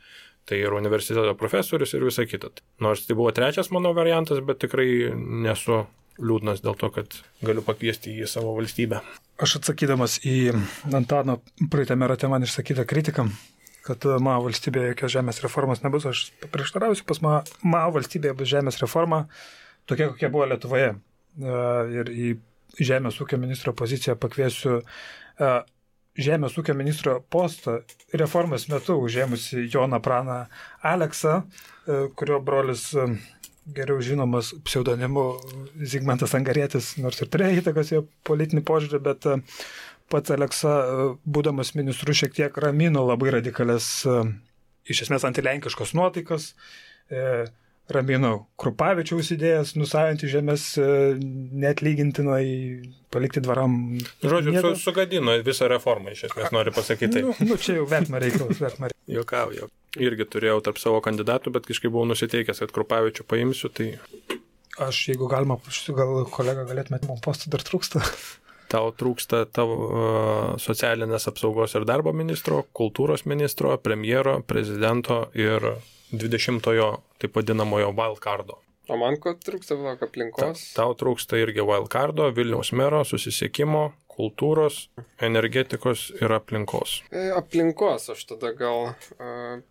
Tai ir universiteto profesorius ir visa kita. Nors tai buvo trečias mano variantas, bet tikrai nesu liūdnas dėl to, kad galiu pakviesti į savo valstybę. Aš atsakydamas į Antano praeitame rate man išsakytą kritiką, kad mano valstybėje jokios žemės reformos nebus, aš prieštarausiu, pas mano valstybėje bus žemės reforma tokia, kokia buvo Lietuvoje. Ir į žemės ūkio ministro poziciją pakviesiu žemės ūkio ministro postą reformos metu užėmusi Joną Praną Aleksą, kurio brolis geriau žinomas pseudonimu Zigmantas Angarietis, nors ir turėjo įtakos jo politinį požiūrį, bet pats Aleksa, būdamas ministru, šiek tiek ramino labai radikalias, iš esmės antilenkiškos nuotaikas, ramino Krupavičiaus idėjas, nusavinti žemės neatlygintinai, palikti dvaram. Žodžiu, sugadino visą reformą, iš esmės nori pasakyti. Čia jau vertimo reikalas. Juokauju. Irgi turėjau tarp savo kandidatų, bet kažkaip buvau nusiteikęs, kad Krupavičių paimsiu, tai... Aš, jeigu galima, gal kolega galėtumėte, man postų dar trūksta. Tau trūksta tavo socialinės apsaugos ir darbo ministro, kultūros ministro, premjero, prezidento ir 20-ojo, taip vadinamojo wildcardo. O man ko trūksta aplinkos? Tau trūksta irgi wildcardo, Vilniaus mero, susisiekimo, kultūros, energetikos ir aplinkos. Aplinkos aš tada gal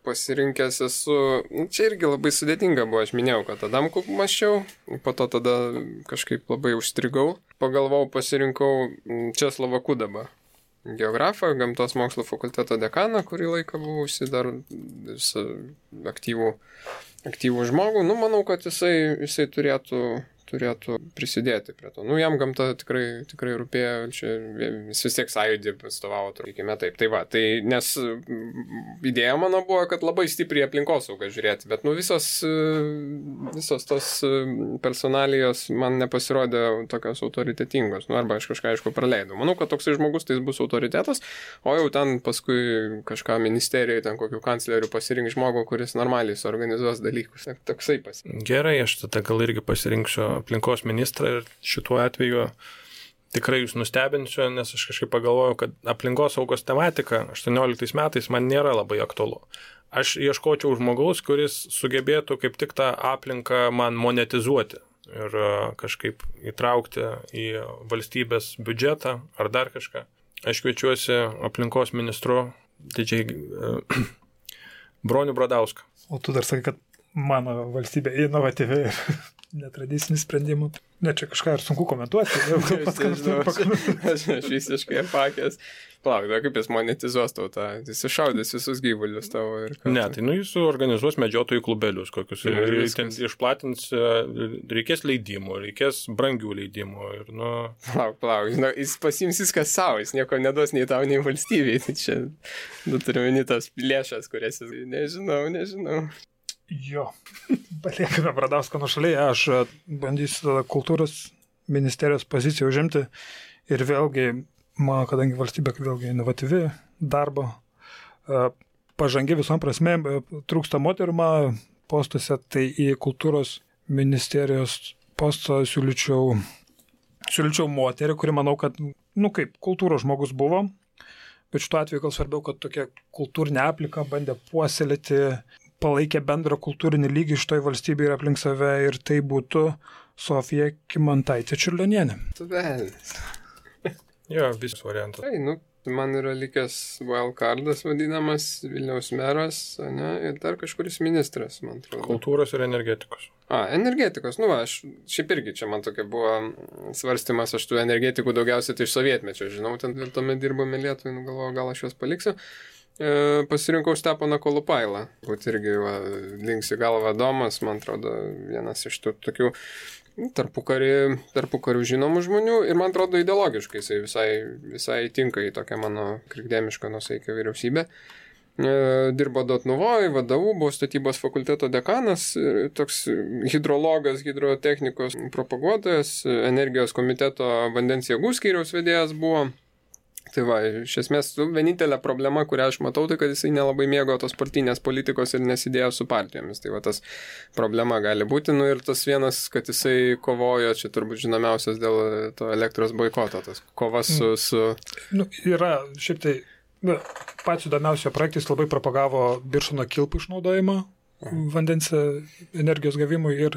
pasirinkęs esu, čia irgi labai sudėtinga buvo, aš minėjau, kad Adamkų mąsčiau, po to tada kažkaip labai užstrigau, pagalvojau, pasirinkau Česlovą Kudabą, geografą, gamtos mokslo fakulteto dekaną, kurį laiką buvau dar aktyvų žmogų, manau, kad jisai turėtų prisidėti prie to. Jam gamta tikrai rūpėjo, jis vis tiek sąjūdį atstovavo, turėkime taip. Tai va, nes idėja mano buvo, kad labai stipriai aplinkosaugą žiūrėti, bet visos tos personalijos man nepasirodė tokios autoritetingos, arba aš kažką aišku praleidau. Manau, kad toksai žmogus tai bus autoritetas, o jau ten paskui kažką ministerijoje, ten kokių kanclerių pasirink žmogų, kuris normaliai suorganizuos dalykus. Toksai pasirinkti. Gerai, aš tada gal irgi pasirinksiu aplinkos ministrą ir šituo atveju tikrai jūs nustebinsiu, nes aš kažkaip pagalvojau, kad aplinkos saugos tematika 18 metais man nėra labai aktualu. Aš ieškočiau žmogaus, kuris sugebėtų kaip tik tą aplinką man monetizuoti ir kažkaip įtraukti į valstybės biudžetą ar dar kažką. Aš kviečiuosi aplinkos ministru didžiai Bronių Bradauską. O tu dar sakai, kad mano valstybė inovatyvi ir netradicinis sprendimų. Ne, čia kažką ir sunku komentuoti. Aš visiškai apakęs. Plauk, kaip jis monetizuos tau tą, jis iššaudys visus gyvulius tavo ir ką. Ne, tai jis organizuos medžiotojų klubelius kokius. Ir ten išplatins, reikės leidimų, reikės brangių leidimų. Ir, Plauk, jis pasiims viską savo, jis nieko neduos nei tau, nei valstybei. Tai čia turiu meni tas lėšas, kurias jis... Nežinau. Jo, paliekime Bradauską nuošaliai, aš bandysiu tada kultūros ministerijos poziciją užimti. Ir vėlgi, man, kadangi valstybė vėlgi inovatyvi darbo, pažangi visom prasme, trūksta moterų postuose, tai į kultūros ministerijos postą siūlyčiau moterį, kuri manau, kad, kaip kultūros žmogus buvo, bet šituo atveju gal svarbiau, kad tokia kultūrinė aplinka bandė puoselėti, palaikė bendrą kultūrinį lygį šitoj valstybėje ir aplink save, ir tai būtų Sofija Kymantaitė Čiurlionienė. Jo, visas variantas. Tai, man yra likęs wildcardas vadinamas, Vilniaus meras, ne, ir dar kažkuris ministras, man atrodo. Kultūros ir energetikos. Energetikos, aš šiaip irgi čia man tokia buvo svarstymas, aš tų energetikų daugiausiai tai iš sovietmečio, žinau, ten tuomet dirbome Lietuvai, galvoju, gal aš juos paliksiu. Pasirinkau Steponą Kolupailą, būt irgi linksi galva Domas, man atrodo, vienas iš tų tokių tarpukarių žinomų žmonių, ir man atrodo ideologiškai jisai visai tinka į tokią mano krikdemišką nusaikę vyriausybę. Dirbo Dotnuvoj, VDU, buvo statybos fakulteto dekanas, toks hidrologas, hidrotechnikos propaguotojas, energijos komiteto vandens jėgų skyriaus vedėjas buvo. Tai va, iš esmės, vienintelė problema, kurią aš matau, tai kad jisai nelabai mėgo tos partinės politikos ir nesidėjo su partijomis. Tai va, tas problema gali būti. Ir tas vienas, kad jisai kovojo, čia turbūt žinomiausias dėl to elektros boikoto, tas kovas su... Yra šiaip tai, pats įdomiausio projektais labai propagavo Birštono kilpų išnaudojimą vandens energijos gavimui ir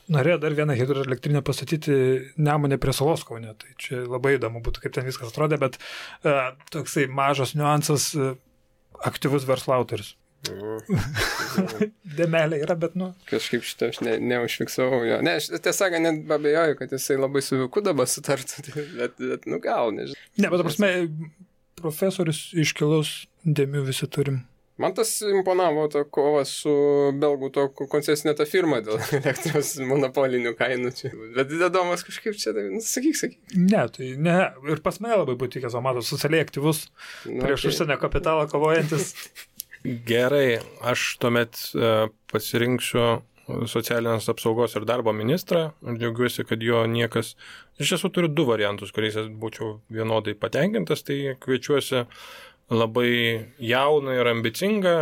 norėjo dar vieną hidroelektrinę pastatyti Nemune prie Salos Kaune. Tai čia labai įdomu būtų, kaip ten viskas atrodė, bet toksai mažas niuansas, aktyvus verslo autorius. Dėmelė yra, bet Kažkaip šitą aš neužfiksavau jo. Ne, aš tiesą net abejoju, kad jisai labai su Viku dabar sutartų, bet gal, nežinau. Ne, bet prasme, profesorius iškilus, dėmių visi turim. Man tas imponavo to kova su belgų to koncesinė ta firma dėl elektros monopolinių kainų čia. Bet įdomas kažkaip čia, sakyk. Ne, tai ne. Ir pas mane labai būtų tikęs, matot, socialiai aktyvus, prieš užsienio kapitalą kovojantis. Gerai, aš tuomet pasirinksiu socialinės apsaugos ir darbo ministrą ir džiaugiuosi, kad jo niekas... Iš tiesų turiu 2 variantus, kuriais būčiau vienodai patenkintas, tai kviečiuosi labai jauną ir ambicingą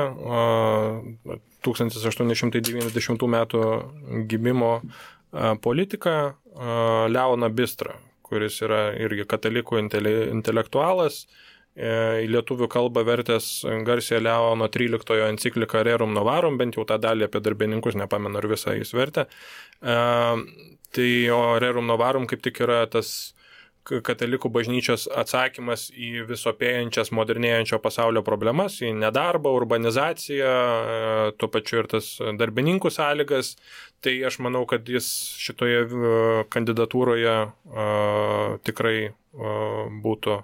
1890 metų gimimo politiką Leoną Bistrą, kuris yra irgi katalikų intelektualas, į lietuvių kalbą vertęs garsią Leono 13 encikliką Rerum Novarum, bent jau tą dalį apie darbininkus, nepamenu, ar visą jis vertė. Tai o Rerum Novarum kaip tik yra tas katalikų bažnyčios atsakymas į visopėjančias modernėjančio pasaulio problemas, į nedarbą, urbanizaciją, tuo pačiu ir tas darbininkų sąlygas. Tai aš manau, kad jis šitoje kandidatūroje tikrai būtų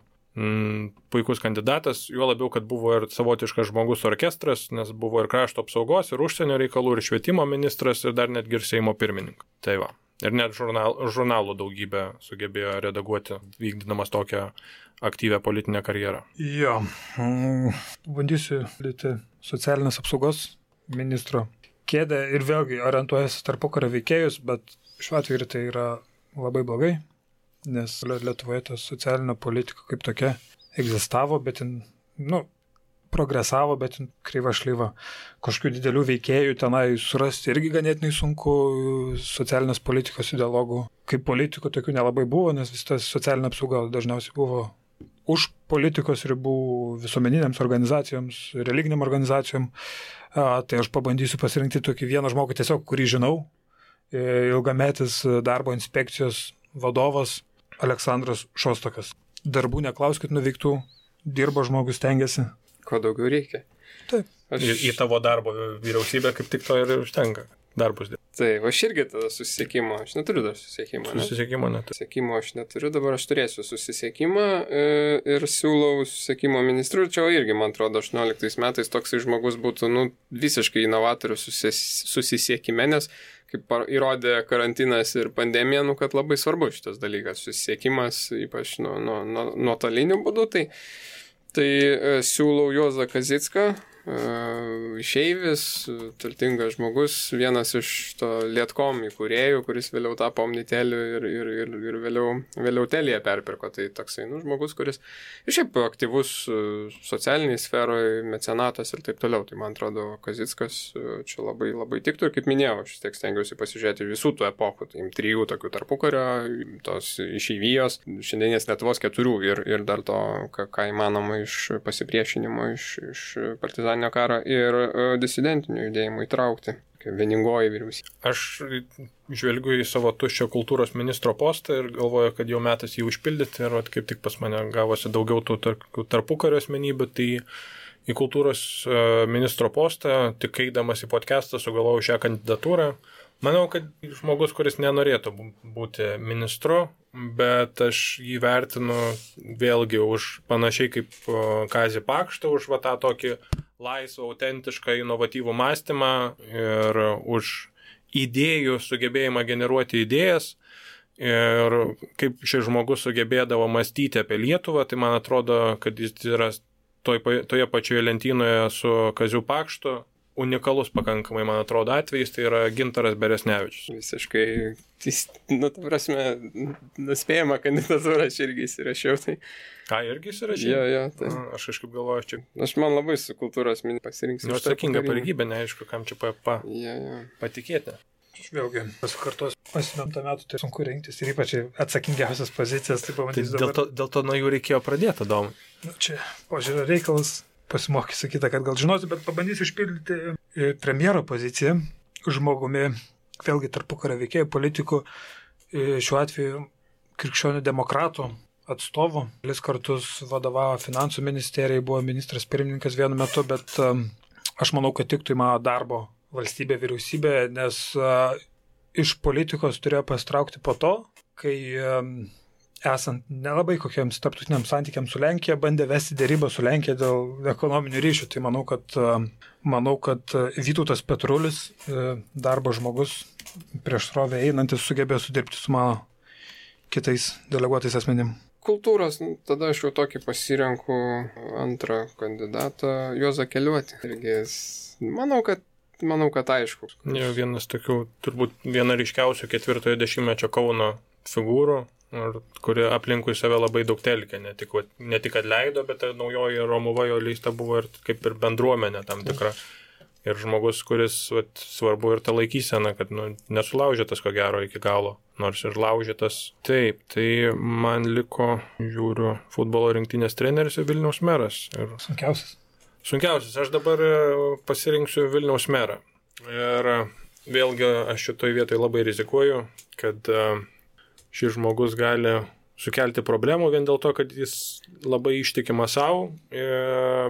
puikus kandidatas, juo labiau, kad buvo ir savotiškas žmogus orkestras, nes buvo ir krašto apsaugos, ir užsienio reikalų, ir švietimo ministras, ir dar netgi ir Seimo pirmininkas. Tai va. Ir net žurnalų daugybę sugebėjo redaguoti, vykdydamas tokią aktyvę politinę karjerą. Jo, bandysiu lyti socialinės apsaugos ministro kėdę ir vėlgi orientuojasi tarpukario veikėjus, bet šiuo atveju tai yra labai blogai, nes Lietuvoje ta socialinė politika kaip tokia egzistavo, bet progresavo, bet kreiva šlyva. Kažkokių didelių veikėjų tenai surasti irgi ganėtinai sunku, socialinės politikos ideologų. Kaip politikų tokių nelabai buvo, nes vis tas socialinė apsauga dažniausiai buvo už politikos ribų visuomeninėms organizacijoms, religiniam organizacijom. Tai aš pabandysiu pasirinkti tokį vieną žmogų tiesiog, kurį žinau, ilgametis darbo inspekcijos vadovas Aleksandras Šostokas. Darbų neklauskit nuveiktų, dirbo žmogus, stengiasi. Ko daugiau reikia. Taip. Į tavo darbo vyriausybę kaip tik to ir užtenka. Darbus dėl. Taip, aš irgi tada susisiekimo, aš neturiu dar susisiekimo. Susisiekimo neturiu. Susisiekimo aš neturiu, dabar aš turėsiu susisiekimą ir siūlau susisiekimo ministrų. Čia irgi, man atrodo, 18 metais toksai žmogus būtų visiškai inovatorius susisiekime, nes kaip įrodė karantinas ir pandemija, kad labai svarbu šitas dalykas, susisiekimas, ypač nuotoliniu būdu. Tai siūlau Juozą Kazicką išeivis, turtingas žmogus, vienas iš to Lietkom įkūrėjų, kuris vėliau tapo Omniteliu ir vėliau Telia perpirko. Tai toksai žmogus, kuris šiaip aktyvus socialiniai sferoje, mecenatas ir taip toliau. Tai man atrodo, Kazickas čia labai, labai tiktų ir kaip minėjau, aš tiek stengiausi pasižiūrėti visų tų epochų, tai 3 tokių tarpukario, tos išeivijos, šiandienės Lietuvos 4 ir dar to, ką įmanoma iš pasipriešinimo, iš partizaninio karo ir disidentinių judėjimų įtraukti. Vieningoji vyriausybė. Aš žvelgiu į savo tuščią kultūros ministro postą ir galvoju, kad jau metas jį užpildyti ir kaip tik pas mane gavosi daugiau tų tarpukario asmenybių, tai į kultūros ministro postą, tik eidamas į podcastą, sugalvojau šią kandidatūrą. Manau, kad žmogus, kuris nenorėtų būti ministru, bet aš jį vertinu vėlgi už panašiai kaip Kazį Pakštą, už tą tokį laisvą, autentišką, inovatyvų mąstymą ir už idėjų sugebėjimą generuoti idėjas. Ir kaip šis žmogus sugebėdavo mąstyti apie Lietuvą, tai man atrodo, kad jis yra toje pačioje lentynoje su Kaziu Pakštu. Unikalus pakankamai, man atrodo, atvejis, tai yra Gintaras Beresnevičius. Visiškai, ta prasme, nuspėjama kandidatūra, aš irgi įsirašiau. Tai... Ką, irgi įsirašiau? Jo, tai... Aš kažkaip galvoju, čia... Aš man labai su kultūros pasirinksiu. Atsakinga pareigybė, neaišku, kam čia patikėti. Aš vėlgi pasikartosiu, 8 metų tai sunku rinktis ir ypač atsakingiausias pozicijas, tai pamatysiu dabar. Dėl to nuo jų reikėjo pradėti, Domai. Čia požiūrio reikalas. Pasimokysiu kitą, kad gal žinosiu, bet pabandysiu išpildyti premjero poziciją žmogumi, vėlgi tarpukario veikėjų, politikų, šiuo atveju krikščionių demokratų atstovų. 2 kartus vadovavo finansų ministerijai, buvo ministras pirmininkas vienu metu, bet aš manau, kad tiktų į mano darbo valstybė, vyriausybė, nes iš politikos turėjo pasitraukti po to, kai esant nelabai kokiems tarptautiniams santykiams su Lenkija, bandė vesti dėrybą su Lenkija dėl ekonominių ryšių. Tai manau, kad Vytautas Petrulis, darbo žmogus, prieš srovę einantis, sugebėjo sudirbti su mano kitais deleguotais asmenim. Kultūros, tada aš jau tokį pasirenku antrą kandidatą, Juozą Keliuotį. Irgi, manau, kad aišku. Vienas tokių, turbūt viena ryškiausių 4-ojo dešimtmečio Kauno figūrų, kuri aplinkui save labai daug telkė, ne tik kad leido, bet naujoji Romuva jo leista buvo ir kaip ir bendruomenė tam tikra. Ir žmogus, kuris svarbu ir ta laikysena, kad nesulaužytas ko gero iki galo, nors ir laužytas. Taip, tai man liko, žiūriu, futbolo rinktinės treneris ir Vilniaus meras. Ir... Sunkiausias. Aš dabar pasirinksiu Vilniaus merą. Ir vėlgi aš šitoj vietoj labai rizikuoju, kad šis žmogus gali sukelti problemų vien dėl to, kad jis labai ištikima savo,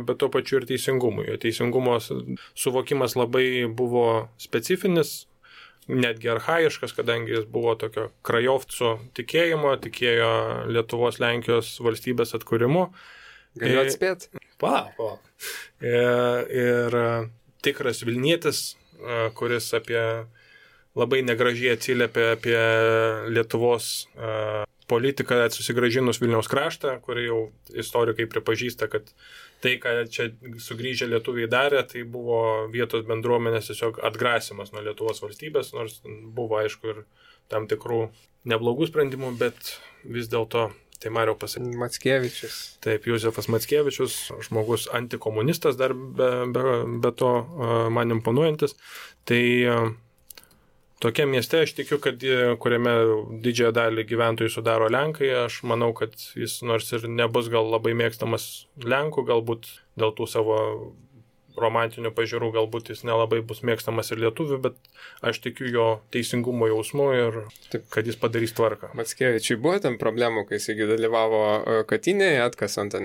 bet tuo pačiu ir teisingumui. Teisingumo suvokimas labai buvo specifinis, netgi archaiškas, kadangi jis buvo tokio krajovcų tikėjimo, tikėjo Lietuvos Lenkijos valstybės atkūrimu. Galiu atspėti? Ir tikras Vilnietis, kuris labai negražiai atsiliepia apie Lietuvos politiką susigrąžinus Vilniaus kraštą, kurį jau istorikai pripažįsta, kad tai, ką čia sugrįžę lietuviai darė, tai buvo vietos bendruomenės tiesiog atgrasimas nuo Lietuvos valstybės, nors buvo aišku ir tam tikrų neblogų sprendimų, bet vis dėlto tai Mariau pasakė. Mackevičius. Taip, Jozefas Mackevičius, žmogus antikomunistas dar be to man imponuojantis. Tai tokia mieste aš tikiu, kad kuriame didžiąją dalį gyventojų sudaro Lenkai, aš manau, kad jis nors ir nebus gal labai mėgstamas Lenkų, galbūt dėl tų savo romantinių pažiūrų, galbūt jis nelabai bus mėgstamas ir lietuvių, bet aš tikiu jo teisingumo jausmu ir taip, kad jis padarys tvarką. Mackevičiui buvo ten problemų, kai jis dalyvavo Katinėje, atkasant,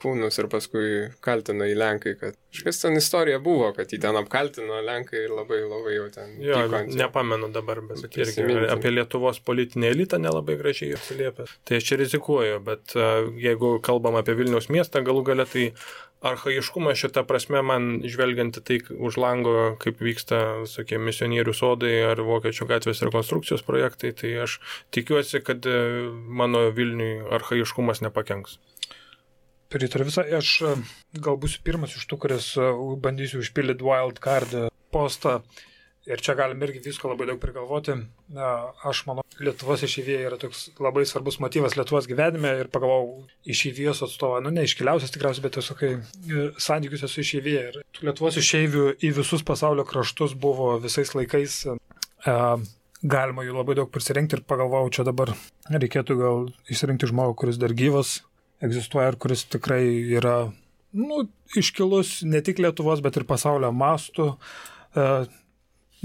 kūnus ir paskui kaltino į Lenkai, kad kažkas ten istorija buvo, kad jį ten apkaltino Lenkai ir labai jau ten... Jo, nepamenu dabar, bet irgi apie Lietuvos politinį elitą nelabai gražiai atsiliepia. Tai aš čia rizikuoju, bet jeigu kalbam apie Vilniaus miestą, galų gale tai archaiškumas šitą prasme man žvelgianti tai už lango, kaip vyksta visokie misionierių sodai ar Vokiečių gatvės rekonstrukcijos projektai, tai aš tikiuosi, kad mano Vilniui archaiškumas nepakenks. Pritariu visą. Aš gal būsiu pirmas iš tų, kuris bandysiu užpildyti wild card postą. Ir čia galim irgi visko labai daug prigalvoti. Aš manau, Lietuvos išeivija yra toks labai svarbus motyvas Lietuvos gyvenime ir pagalvojau išeivijos atstovą, ne iškiliausias tikriausiai, bet tiesiog santykiuose su išeivija. Ir Lietuvos išeivių į visus pasaulio kraštus buvo visais laikais. Galima jų labai daug prisirinkti ir pagalvojau, čia dabar reikėtų gal išsirinkti žmogų, kuris dar gyvas egzistuoja ir kuris tikrai yra iškilus ne tik Lietuvos, bet ir pasaulio mastų.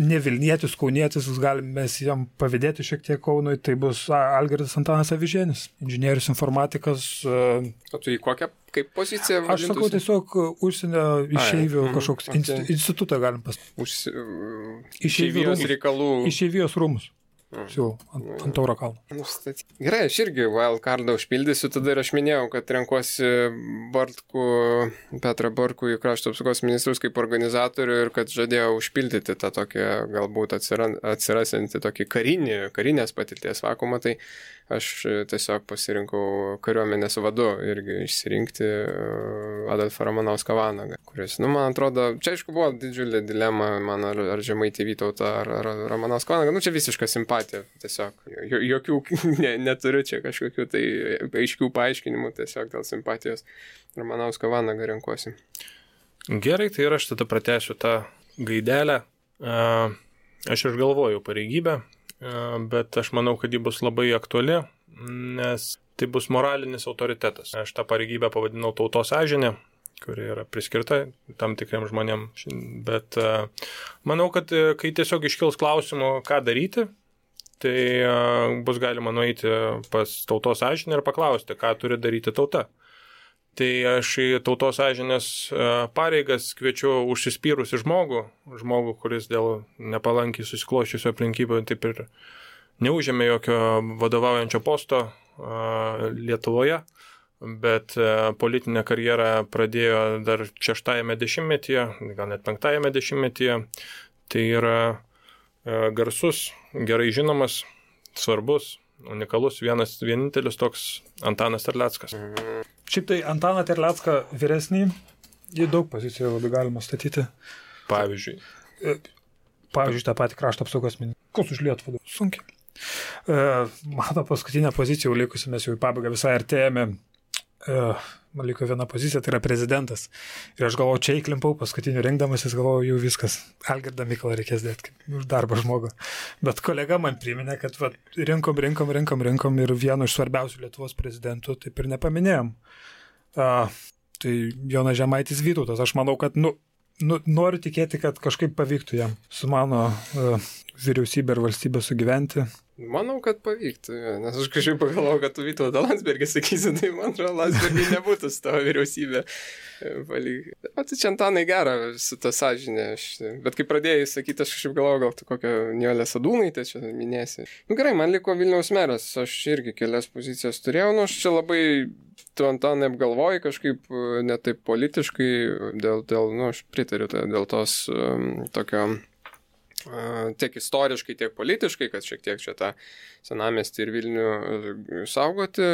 Ne Vilnietis, Kaunietis, galime jam pavydėti šiek tiek Kaunui, tai bus Algirdas Antanas Avižėnis, inžinierius informatikas. O tu į kokią, kaip poziciją vadintųsi? Aš sakau tiesiog užsienio išeivių kažkoks institutą galim pasakyti. Išeivijos reikalų. Išeivijos rūmus. Ant Tauro kalno. Gerai, aš irgi wildcardą užpildysiu, tada ir aš minėjau, kad renkuosi Petrą Bartkų į krašto apsaugos ministrus kaip organizatorių ir kad žadėjau užpildyti tą tokį galbūt atsirasiantį tokį karinės patirties vakumą, tai aš tiesiog pasirinkau kariuomenės vadu irgi išsirinkti Adolfą Ramanauską Vanagą, kuris, man atrodo, čia aišku buvo didžiulė dilema man, ar Žemaitį Vytautą, ar Ramanauską Vanagą, čia visiška simpatija, tiesiog, jokių neturiu čia kažkokių tai aiškių paaiškinimų, tiesiog dėl simpatijos Ramanauską Vanagą renkuosi. Gerai, tai ir aš tada pratęsiu tą gaidelę. Aš išgalvoju pareigybę, bet aš manau, kad ji bus labai aktuali, nes tai bus moralinis autoritetas. Aš tą pareigybę pavadinau tautos sąžinė, kuri yra priskirta tam tikriem žmonėm, bet manau, kad kai tiesiog iškils klausimų, ką daryti, tai bus galima nueiti pas tautos sąžinę ir paklausti, ką turi daryti tauta. Tai aš į tautos sąžinės pareigas kviečiu užsispyrusi žmogų, kuris dėl nepalankiai susikloščiusio aplinkybių taip ir neužėmė jokio vadovaujančio posto Lietuvoje, bet politinę karjerą pradėjo dar 6-ame dešimtmetyje, gal net 5-ame dešimtmetyje. Tai yra garsus, gerai žinomas, svarbus, unikalus, vienintelis toks Antanas Terleckas. Šiaip tai Antaną Terlecką vyresnį, į daug pozicijų labai galima statyti. Pavyzdžiui, tą patį krašto apsaugos ministrą. Kas už Lietuvą? Sunkiai. Mano paskutinė pozicija likusi, mes jau į pabaigą visai artėjame. Man liko viena pozicija, tai yra prezidentas. Ir aš galvoju, čia įklimpau paskutinių rinkdamasis, galvoju, jau viskas. Algirdą Mykolą reikės dėti už darbą žmogų. Bet kolega man priminė, kad rinkom ir vieno iš svarbiausių Lietuvos prezidentų taip ir nepaminėjom. Tai Jonas Žemaitis Vytautas. Aš manau, kad noriu tikėti, kad kažkaip pavyktų jam su mano vyriausybė ir valstybė sugyventi. Manau, kad pavyktų, nes aš kažkaip pagalvojau, kad tu Vytautą Landsbergį sakysi, tai man atrodo, Landsbergį nebūtų su tavo vyriausybė. O tai čia Antanai gera su ta sąžinė. Bet kai pradėjai sakyti, aš kažkaip galvojau, gal tu kokią Nijolę Sadūnaitę čia minėsi. Gerai, man liko Vilniaus meras, aš irgi kelias pozicijas turėjau, aš čia labai tu Antanai apgalvoji kažkaip netaip politiškai, aš pritariu dėl tos tokio tiek istoriškai, tiek politiškai, kad šiek tiek čia tą senamiestį ir Vilnių saugoti,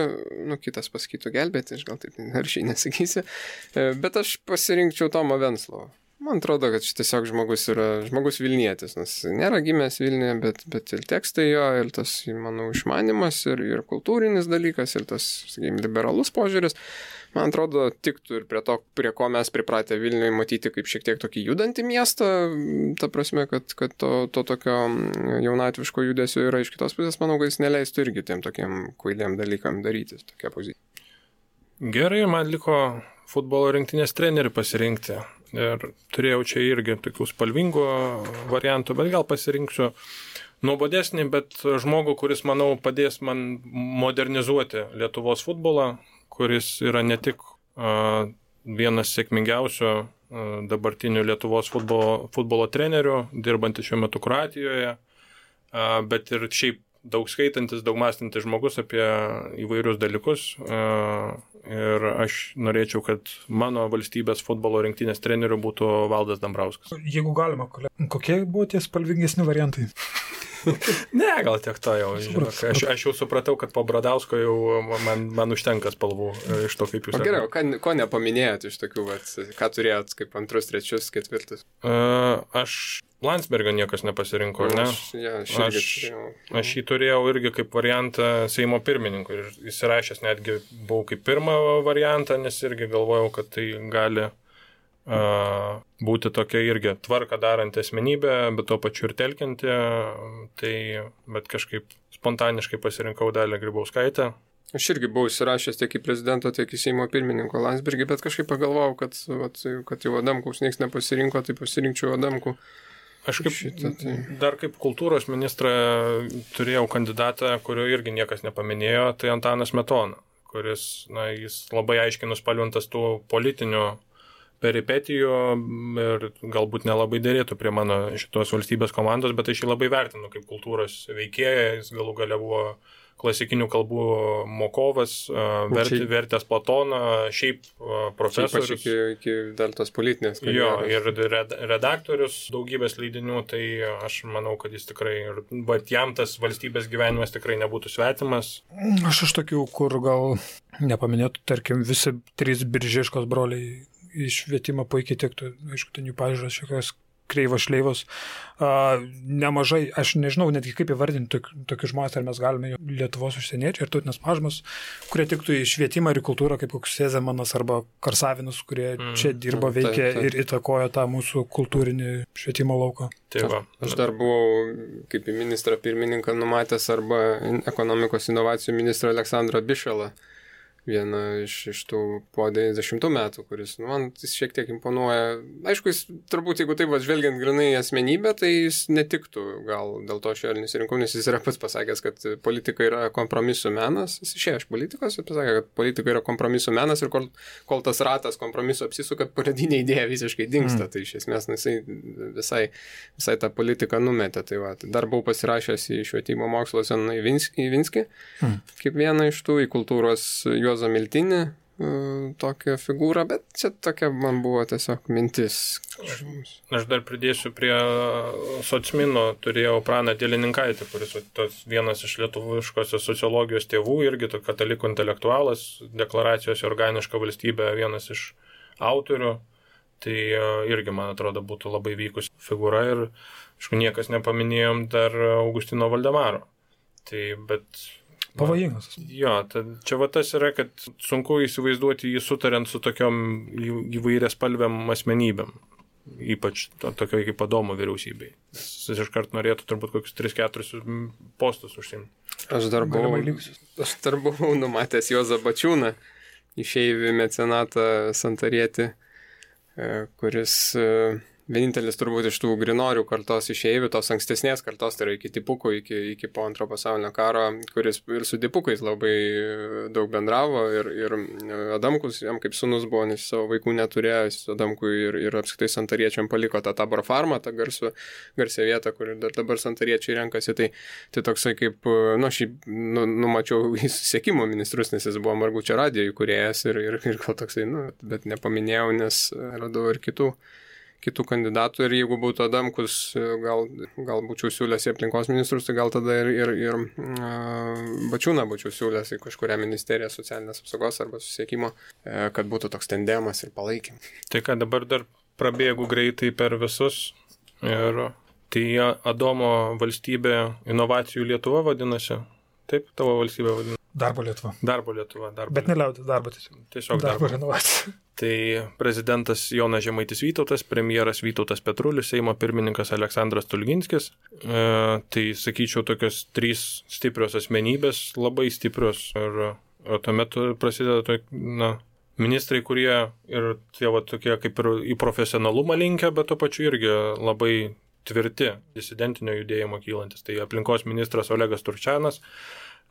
kitas pasakytų gelbėti, aš gal taip aršiai nesakysiu, bet aš pasirinkčiau Tomą Venclovą. Man atrodo, kad šis tiesiog žmogus Vilnietis, nes nėra gimęs Vilniuje, bet ir tekstai jo, ir tas, manau, išmanimas, ir kultūrinis dalykas, ir tas, sakykime, liberalus požiūris. Man atrodo, tiktų ir prie ko mes pripratę Vilniuje matyti kaip šiek tiek tokį judantį miestą, ta prasme, kad to tokio jaunatviško judesio yra iš kitos pusės, manau, kad jis neleistų irgi tiem tokiem kvailiem dalykam darytis, tokia pozicija. Gerai, man liko futbolo rinktinės trenerių pasirinkti ir turėjau čia irgi tokių spalvingų variantų, bet gal pasirinksiu nuobodesnį, bet žmogų, kuris, manau, padės man modernizuoti Lietuvos futbolą, kuris yra ne tik vienas sėkmingiausių dabartinių Lietuvos futbolo trenerių, dirbantis šiuo metu Kroatijoje, bet ir šiaip daug skaitantis, daug mąstantis žmogus apie įvairius dalykus. Ir aš norėčiau, kad mano valstybės futbolo rinktinės treneriu būtų Valdas Dambrauskas. Jeigu galima, kokie buvo tie spalvingesni variantai? Ne, gal tiek to jau. Žinok, aš jau supratau, kad po Bradausko jau man užtenka spalvų iš to, kaip jūs. Gerai, ko nepaminėjot iš tokių, ką turėjot kaip antrus, trečius, ketvirtus? Aš Landsbergio niekas nepasirinko, ne? Aš jį turėjau irgi kaip variantą Seimo pirmininkų ir įsirašęs netgi buvau kaip pirmą variantą, nes irgi galvojau, kad tai gali būti tokia irgi tvarka daranti asmenybė, bet tuo pačiu ir telkianti, bet kažkaip spontaniškai pasirinkau Dalią Grybauskaitę. Aš irgi buvau įsirašęs tiek į prezidento, tiek į Seimo pirmininko Landsbergį, bet kažkaip pagalvojau, kad jau Adamkaus niekas nepasirinko, tai pasirinkčiau Adamkų. Aš dar kaip kultūros ministrą turėjau kandidatą, kurio irgi niekas nepaminėjo, tai Antanas Smetona, kuris, jis labai aiškiai nuspalvintas tų politinių peripetijų ir galbūt nelabai dėrėtų prie mano šitos valstybės komandos, bet aš jį labai vertinu kaip kultūros veikėją, jis galų gale buvo klasikinių kalbų mokovas, vertęs Platoną, šiaip profesorius. Šiaip iki dar tos politinės. Jo, ir redaktorius daugybės leidinių, tai aš manau, kad jis tikrai, bet jam tas valstybės gyvenimas tikrai nebūtų svetimas. Aš iš tokių, kur gal nepaminėtų, tarkim, visi 3 Biržiškos broliai iš švietimo puikiai tiktų, aišku, ten jų pažiūros šiokios kreivos šleivos. Nemažai, aš nežinau netgi kaip įvardinti tokius žmonės, ar mes galime Lietuvos užsieniečiai ir tautinės mažumas, kurie tiktų į švietimą ir į kultūrą, kaip koks Sezemanas arba Karsavinas, kurie čia dirbo, veikė ir įtakojo tą mūsų kultūrinį švietimo lauką. Aš dar buvau kaip į ministrą pirmininką numatęs arba ekonomikos inovacijų ministrą Aleksandrą Bišalą. Vieną iš tų po 90 metų, kuris, man jis šiek tiek imponuoja. Aišku, jis turbūt, jeigu taip žvelgiant grinai asmenybę, tai jis netiktų, gal dėl to aš jo nesirinkau, nes jis yra pats pasakęs, kad politika yra kompromisų menas. Jis išėjo iš politikos ir pasakė, kad politika yra kompromisų menas ir kol tas ratas kompromiso apsisuka, pradinė idėja visiškai dingsta. Tai iš esmės jisai visai tą politiką numetė. Tai dar buvau pasirašęs į švietimo mokslo Zenoną Ivinskį, kaip vieną iš tų, į kultūros Juozą Miltinį, tokią figūrą, bet čia tokia man buvo tiesiog mintis. Aš dar pridėsiu prie socmino, turėjau Praną Dielininkaitį, kuris vienas iš lietuviškosios sociologijos tėvų, irgi katalikų intelektualas, deklaracijos organiška valstybė, vienas iš autorių, tai irgi, man atrodo, būtų labai vykus figūra ir, aišku, niekas nepaminėjom dar Augustino Valdemaro. Tai, bet pavojingas. Jo, čia tas yra, kad sunku įsivaizduoti jį sutariant su tokiom įvairias spalviam asmenybėm, ypač tokio kaip Adomo vyriausybei. Jis iškart norėtų turbūt kokius 3-4 postus užsiimti. Aš dar buvau numatęs Juozą Bačiūną, išeivį mecenatą Santarietį, kuris vienintelis turbūt iš tų grinorių kartos išeivių, tos ankstesnės kartos, tai yra iki Dipukų, iki po Antro pasaulinio karo, kuris ir su Dipukais labai daug bendravo ir Adamkus jam kaip sūnus buvo, nes savo vaikų neturėjo, Adamkui ir apskritai Santariečiam paliko tą Tabor farmą, tą garsią vietą, kur dabar Santariečiai renkasi, tai toksai kaip, numačiau į susisiekimo ministrus, nes jis buvo Margučio radijo įkūrėjas ir gal toksai, bet nepaminėjau, nes radau ir kitų kandidatų ir jeigu būtų Adamkus, gal būčiau siūlęs į aplinkos ministrus, tai gal tada ir Bačiūną būčiau siūlęs į kažkurią ministeriją socialinės apsaugos arba susisiekimo, kad būtų toks tandemas ir palaikym. Tai ką dabar dar prabėgu greitai per visus ir tai Adomo valstybė inovacijų Lietuva vadinasi. Taip, tavo valstybė vadinasi. Darbo Lietuva. Bet neliaudis darbo tiesiog. Darbo inovacija. Tai prezidentas Jonas Žemaitis Vytautas, premjeras Vytautas Petrulis, Seimo pirmininkas Aleksandras Stulginskis. Tai sakyčiau tokios 3 stiprios asmenybės, labai stiprios. Ir tuomet prasideda ministrai, kurie ir tie tokie kaip ir į profesionalumą linkę, bet tuo pačiu irgi labai tvirti disidentinio judėjimo kylantis. Tai aplinkos ministras Olegas Turčianas,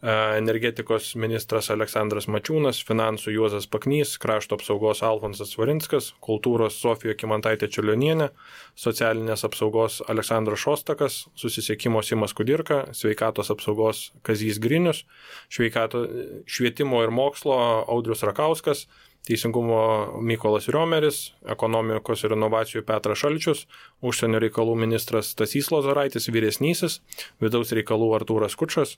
energetikos ministras Aleksandras Mačiūnas, finansų Juozas Paknys, krašto apsaugos Alfonsas Svarinskas, kultūros Sofija Kymantaitė Čiurlionienė, socialinės apsaugos Aleksandras Šostakas, susisiekimo Simas Kudirka, sveikatos apsaugos Kazys Grinius, švietimo ir mokslo Audrius Rakauskas, teisingumo Mykolas Riomeris, ekonomikos ir inovacijų Petras Šalčius, užsienio reikalų ministras Stasys Lozoraitis vyresnysis, vidaus reikalų Artūras Kučas,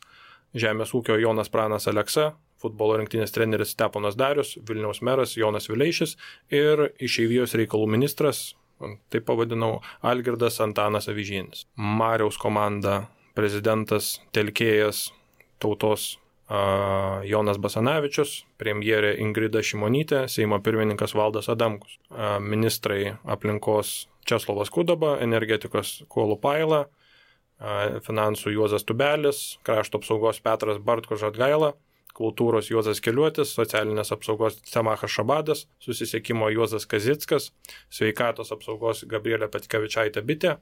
žemės ūkio Jonas Pranas Aleksa, futbolo rinktinės treneris Steponas Darius, Vilniaus meras Jonas Vileišis ir išeivijos reikalų ministras, taip pavadinau, Algirdas Antanas Avižienis. Mariaus komanda prezidentas Telkėjas Tautos Jonas Basanavičius, premjerė Ingrida Šimonytė, Seimo pirmininkas Valdas Adamkus, ministrai aplinkos Česlovas Kudaba, energetikos Kuolų Paila, finansų Juozas Tubelis, krašto apsaugos Petras Bartko Žadgaila, kultūros Juozas Keliuotis, socialinės apsaugos Semachas Šabadas, susisiekimo Juozas Kazickas, sveikatos apsaugos Gabrielė Petkevičaitė Bitė,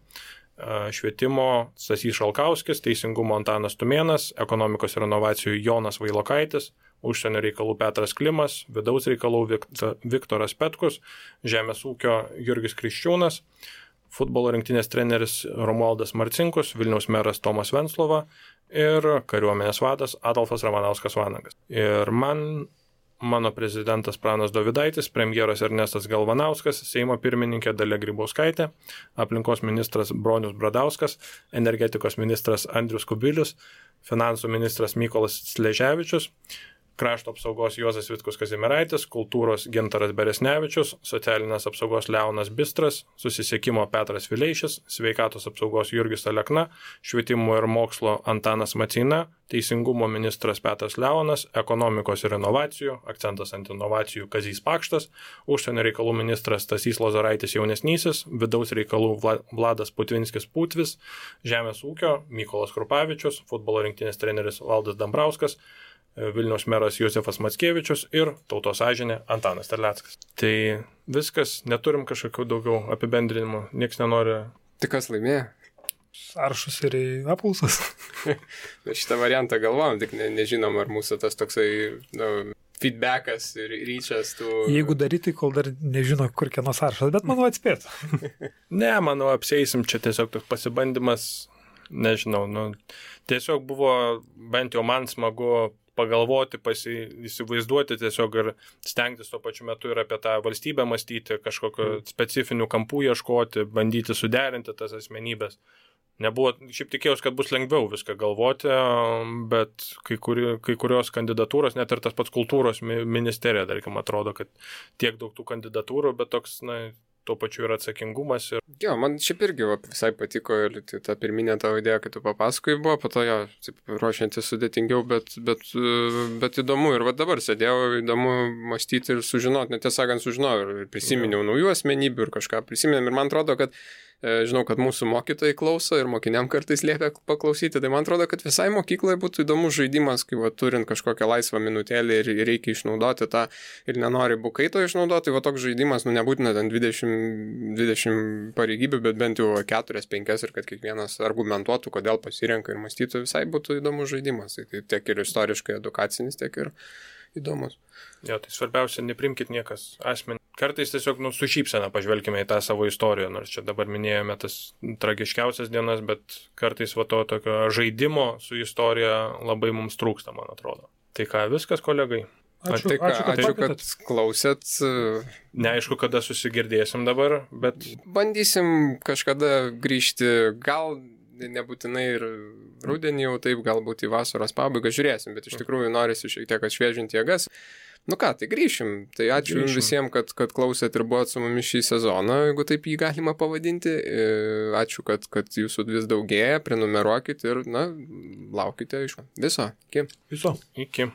švietimo Stasys Šalkauskis, teisingumo Antanas Tumėnas, ekonomikos ir inovacijų Jonas Vailokaitis, užsienio reikalų Petras Klimas, vidaus reikalų Viktoras Petkus, žemės ūkio Jurgis Kriščiūnas, futbolo rinktinės treneris Romualdas Marcinkus, Vilniaus meras Tomas Venclova ir kariuomenės vadas Adolfas Ramanauskas Vanagas. Ir mano prezidentas Pranas Dovydaitis, premjeras Ernestas Galvanauskas, Seimo pirmininkė Dalia Grybauskaitė, aplinkos ministras Bronius Bradauskas, energetikos ministras Andrius Kubilius, finansų ministras Mykolas Sleževičius, krašto apsaugos Juozas Vitkus Kazimieraitis, kultūros Gintaras Beresnevičius, socialinės apsaugos Leonas Bistras, susisiekimo Petras Vileišis, sveikatos apsaugos Jurgis Alekna, švietimo ir mokslo Antanas Macina, teisingumo ministras Petras Leonas, ekonomikos ir inovacijų, akcentas ant inovacijų Kazys Pakštas, užsienio reikalų ministras Stasys Lozoraitis jaunesnysis, vidaus reikalų Vladas Putvinskis Putvis, žemės ūkio Mykolas Krupavičius, futbolo rinktinės treneris Valdas Dambrauskas, Vilniaus meras Josefas Mackevičius ir tautos sąžinė Antanas Terleckas. Tai viskas, neturim kažkokių daugiau apibendrinimų, nieks nenori. Tai kas laimėjo? Sąrašus ir apklausas. Šitą variantą galvojam, tik nežinom, ar mūsų tas toksai feedbackas ir ryčias tų... Jeigu daryti, kol dar nežino, kur kieno sąrašas, bet manau atspėtų. Ne, manau, apseisim, čia tiesiog toks pasibandymas, nežinau, tiesiog buvo bent jau man smagu pagalvoti, įsivaizduoti tiesiog ir stengtis tuo pačiu metu ir apie tą valstybę mąstyti, kažkokio specifinių kampų ieškoti, bandyti suderinti tas asmenybės. Nebuvo, šiaip tikėjausi, kad bus lengviau viską galvoti, bet kai kurios kandidatūros, net ir tas pats kultūros ministerija, tarkim, atrodo, kad tiek daug tų kandidatūrų, bet toks, tuo pačiu yra atsakingumas. Jo, man šiaip irgi visai patiko ir ta pirminė tavo idėja, kad tu papasakojai buvo, po to jo, ruošiantis sudėtingiau, bet įdomu. Ir dabar sėdėjau, įdomu mąstyti ir sužinoti, netiesą sakant, sužinojau ir prisiminiau naujų asmenybių ir kažką prisiminėm. Ir man atrodo, kad žinau, kad mūsų mokytojai klauso ir mokiniam kartais liepia paklausyti, tai man atrodo, kad visai mokykloje būtų įdomus žaidimas, kai turint kažkokią laisvą minutėlį ir reikia išnaudoti tą ir nenori bukaito išnaudoti, toks žaidimas, nebūtina ten 20 pareigybių, bet bent jau 4-5 ir kad kiekvienas argumentuotų, kodėl pasirenka ir mąstytų, visai būtų įdomus žaidimas. Tai tiek ir istoriškai edukacinis, tiek ir įdomus. Jo, tai svarbiausia, neprimkit niekas asmenį. Kartais tiesiog su šypsena pažvelkime į tą savo istoriją, nors čia dabar minėjome tas tragiškiausias dienas, bet kartais to tokio žaidimo su istorija labai mums trūksta, man atrodo. Tai ką, viskas, kolegai? Ačiū, kad klausėt. Neaišku, kada susigirdėsim dabar, bet... Bandysim kažkada grįžti, gal nebūtinai ir rudenį jau taip, galbūt į vasaros pabaigą žiūrėsim, bet iš tikrųjų norisi šiek tiek atšviežinti jėgas. Tai grįšim. Tai ačiū visiems, kad klausėt ir buvot su mumis šį sezoną, jeigu taip jį galima pavadinti. Ačiū, kad jūsų vis daugėja, prenumeruokit ir, laukite iš viso. Iki. Iki.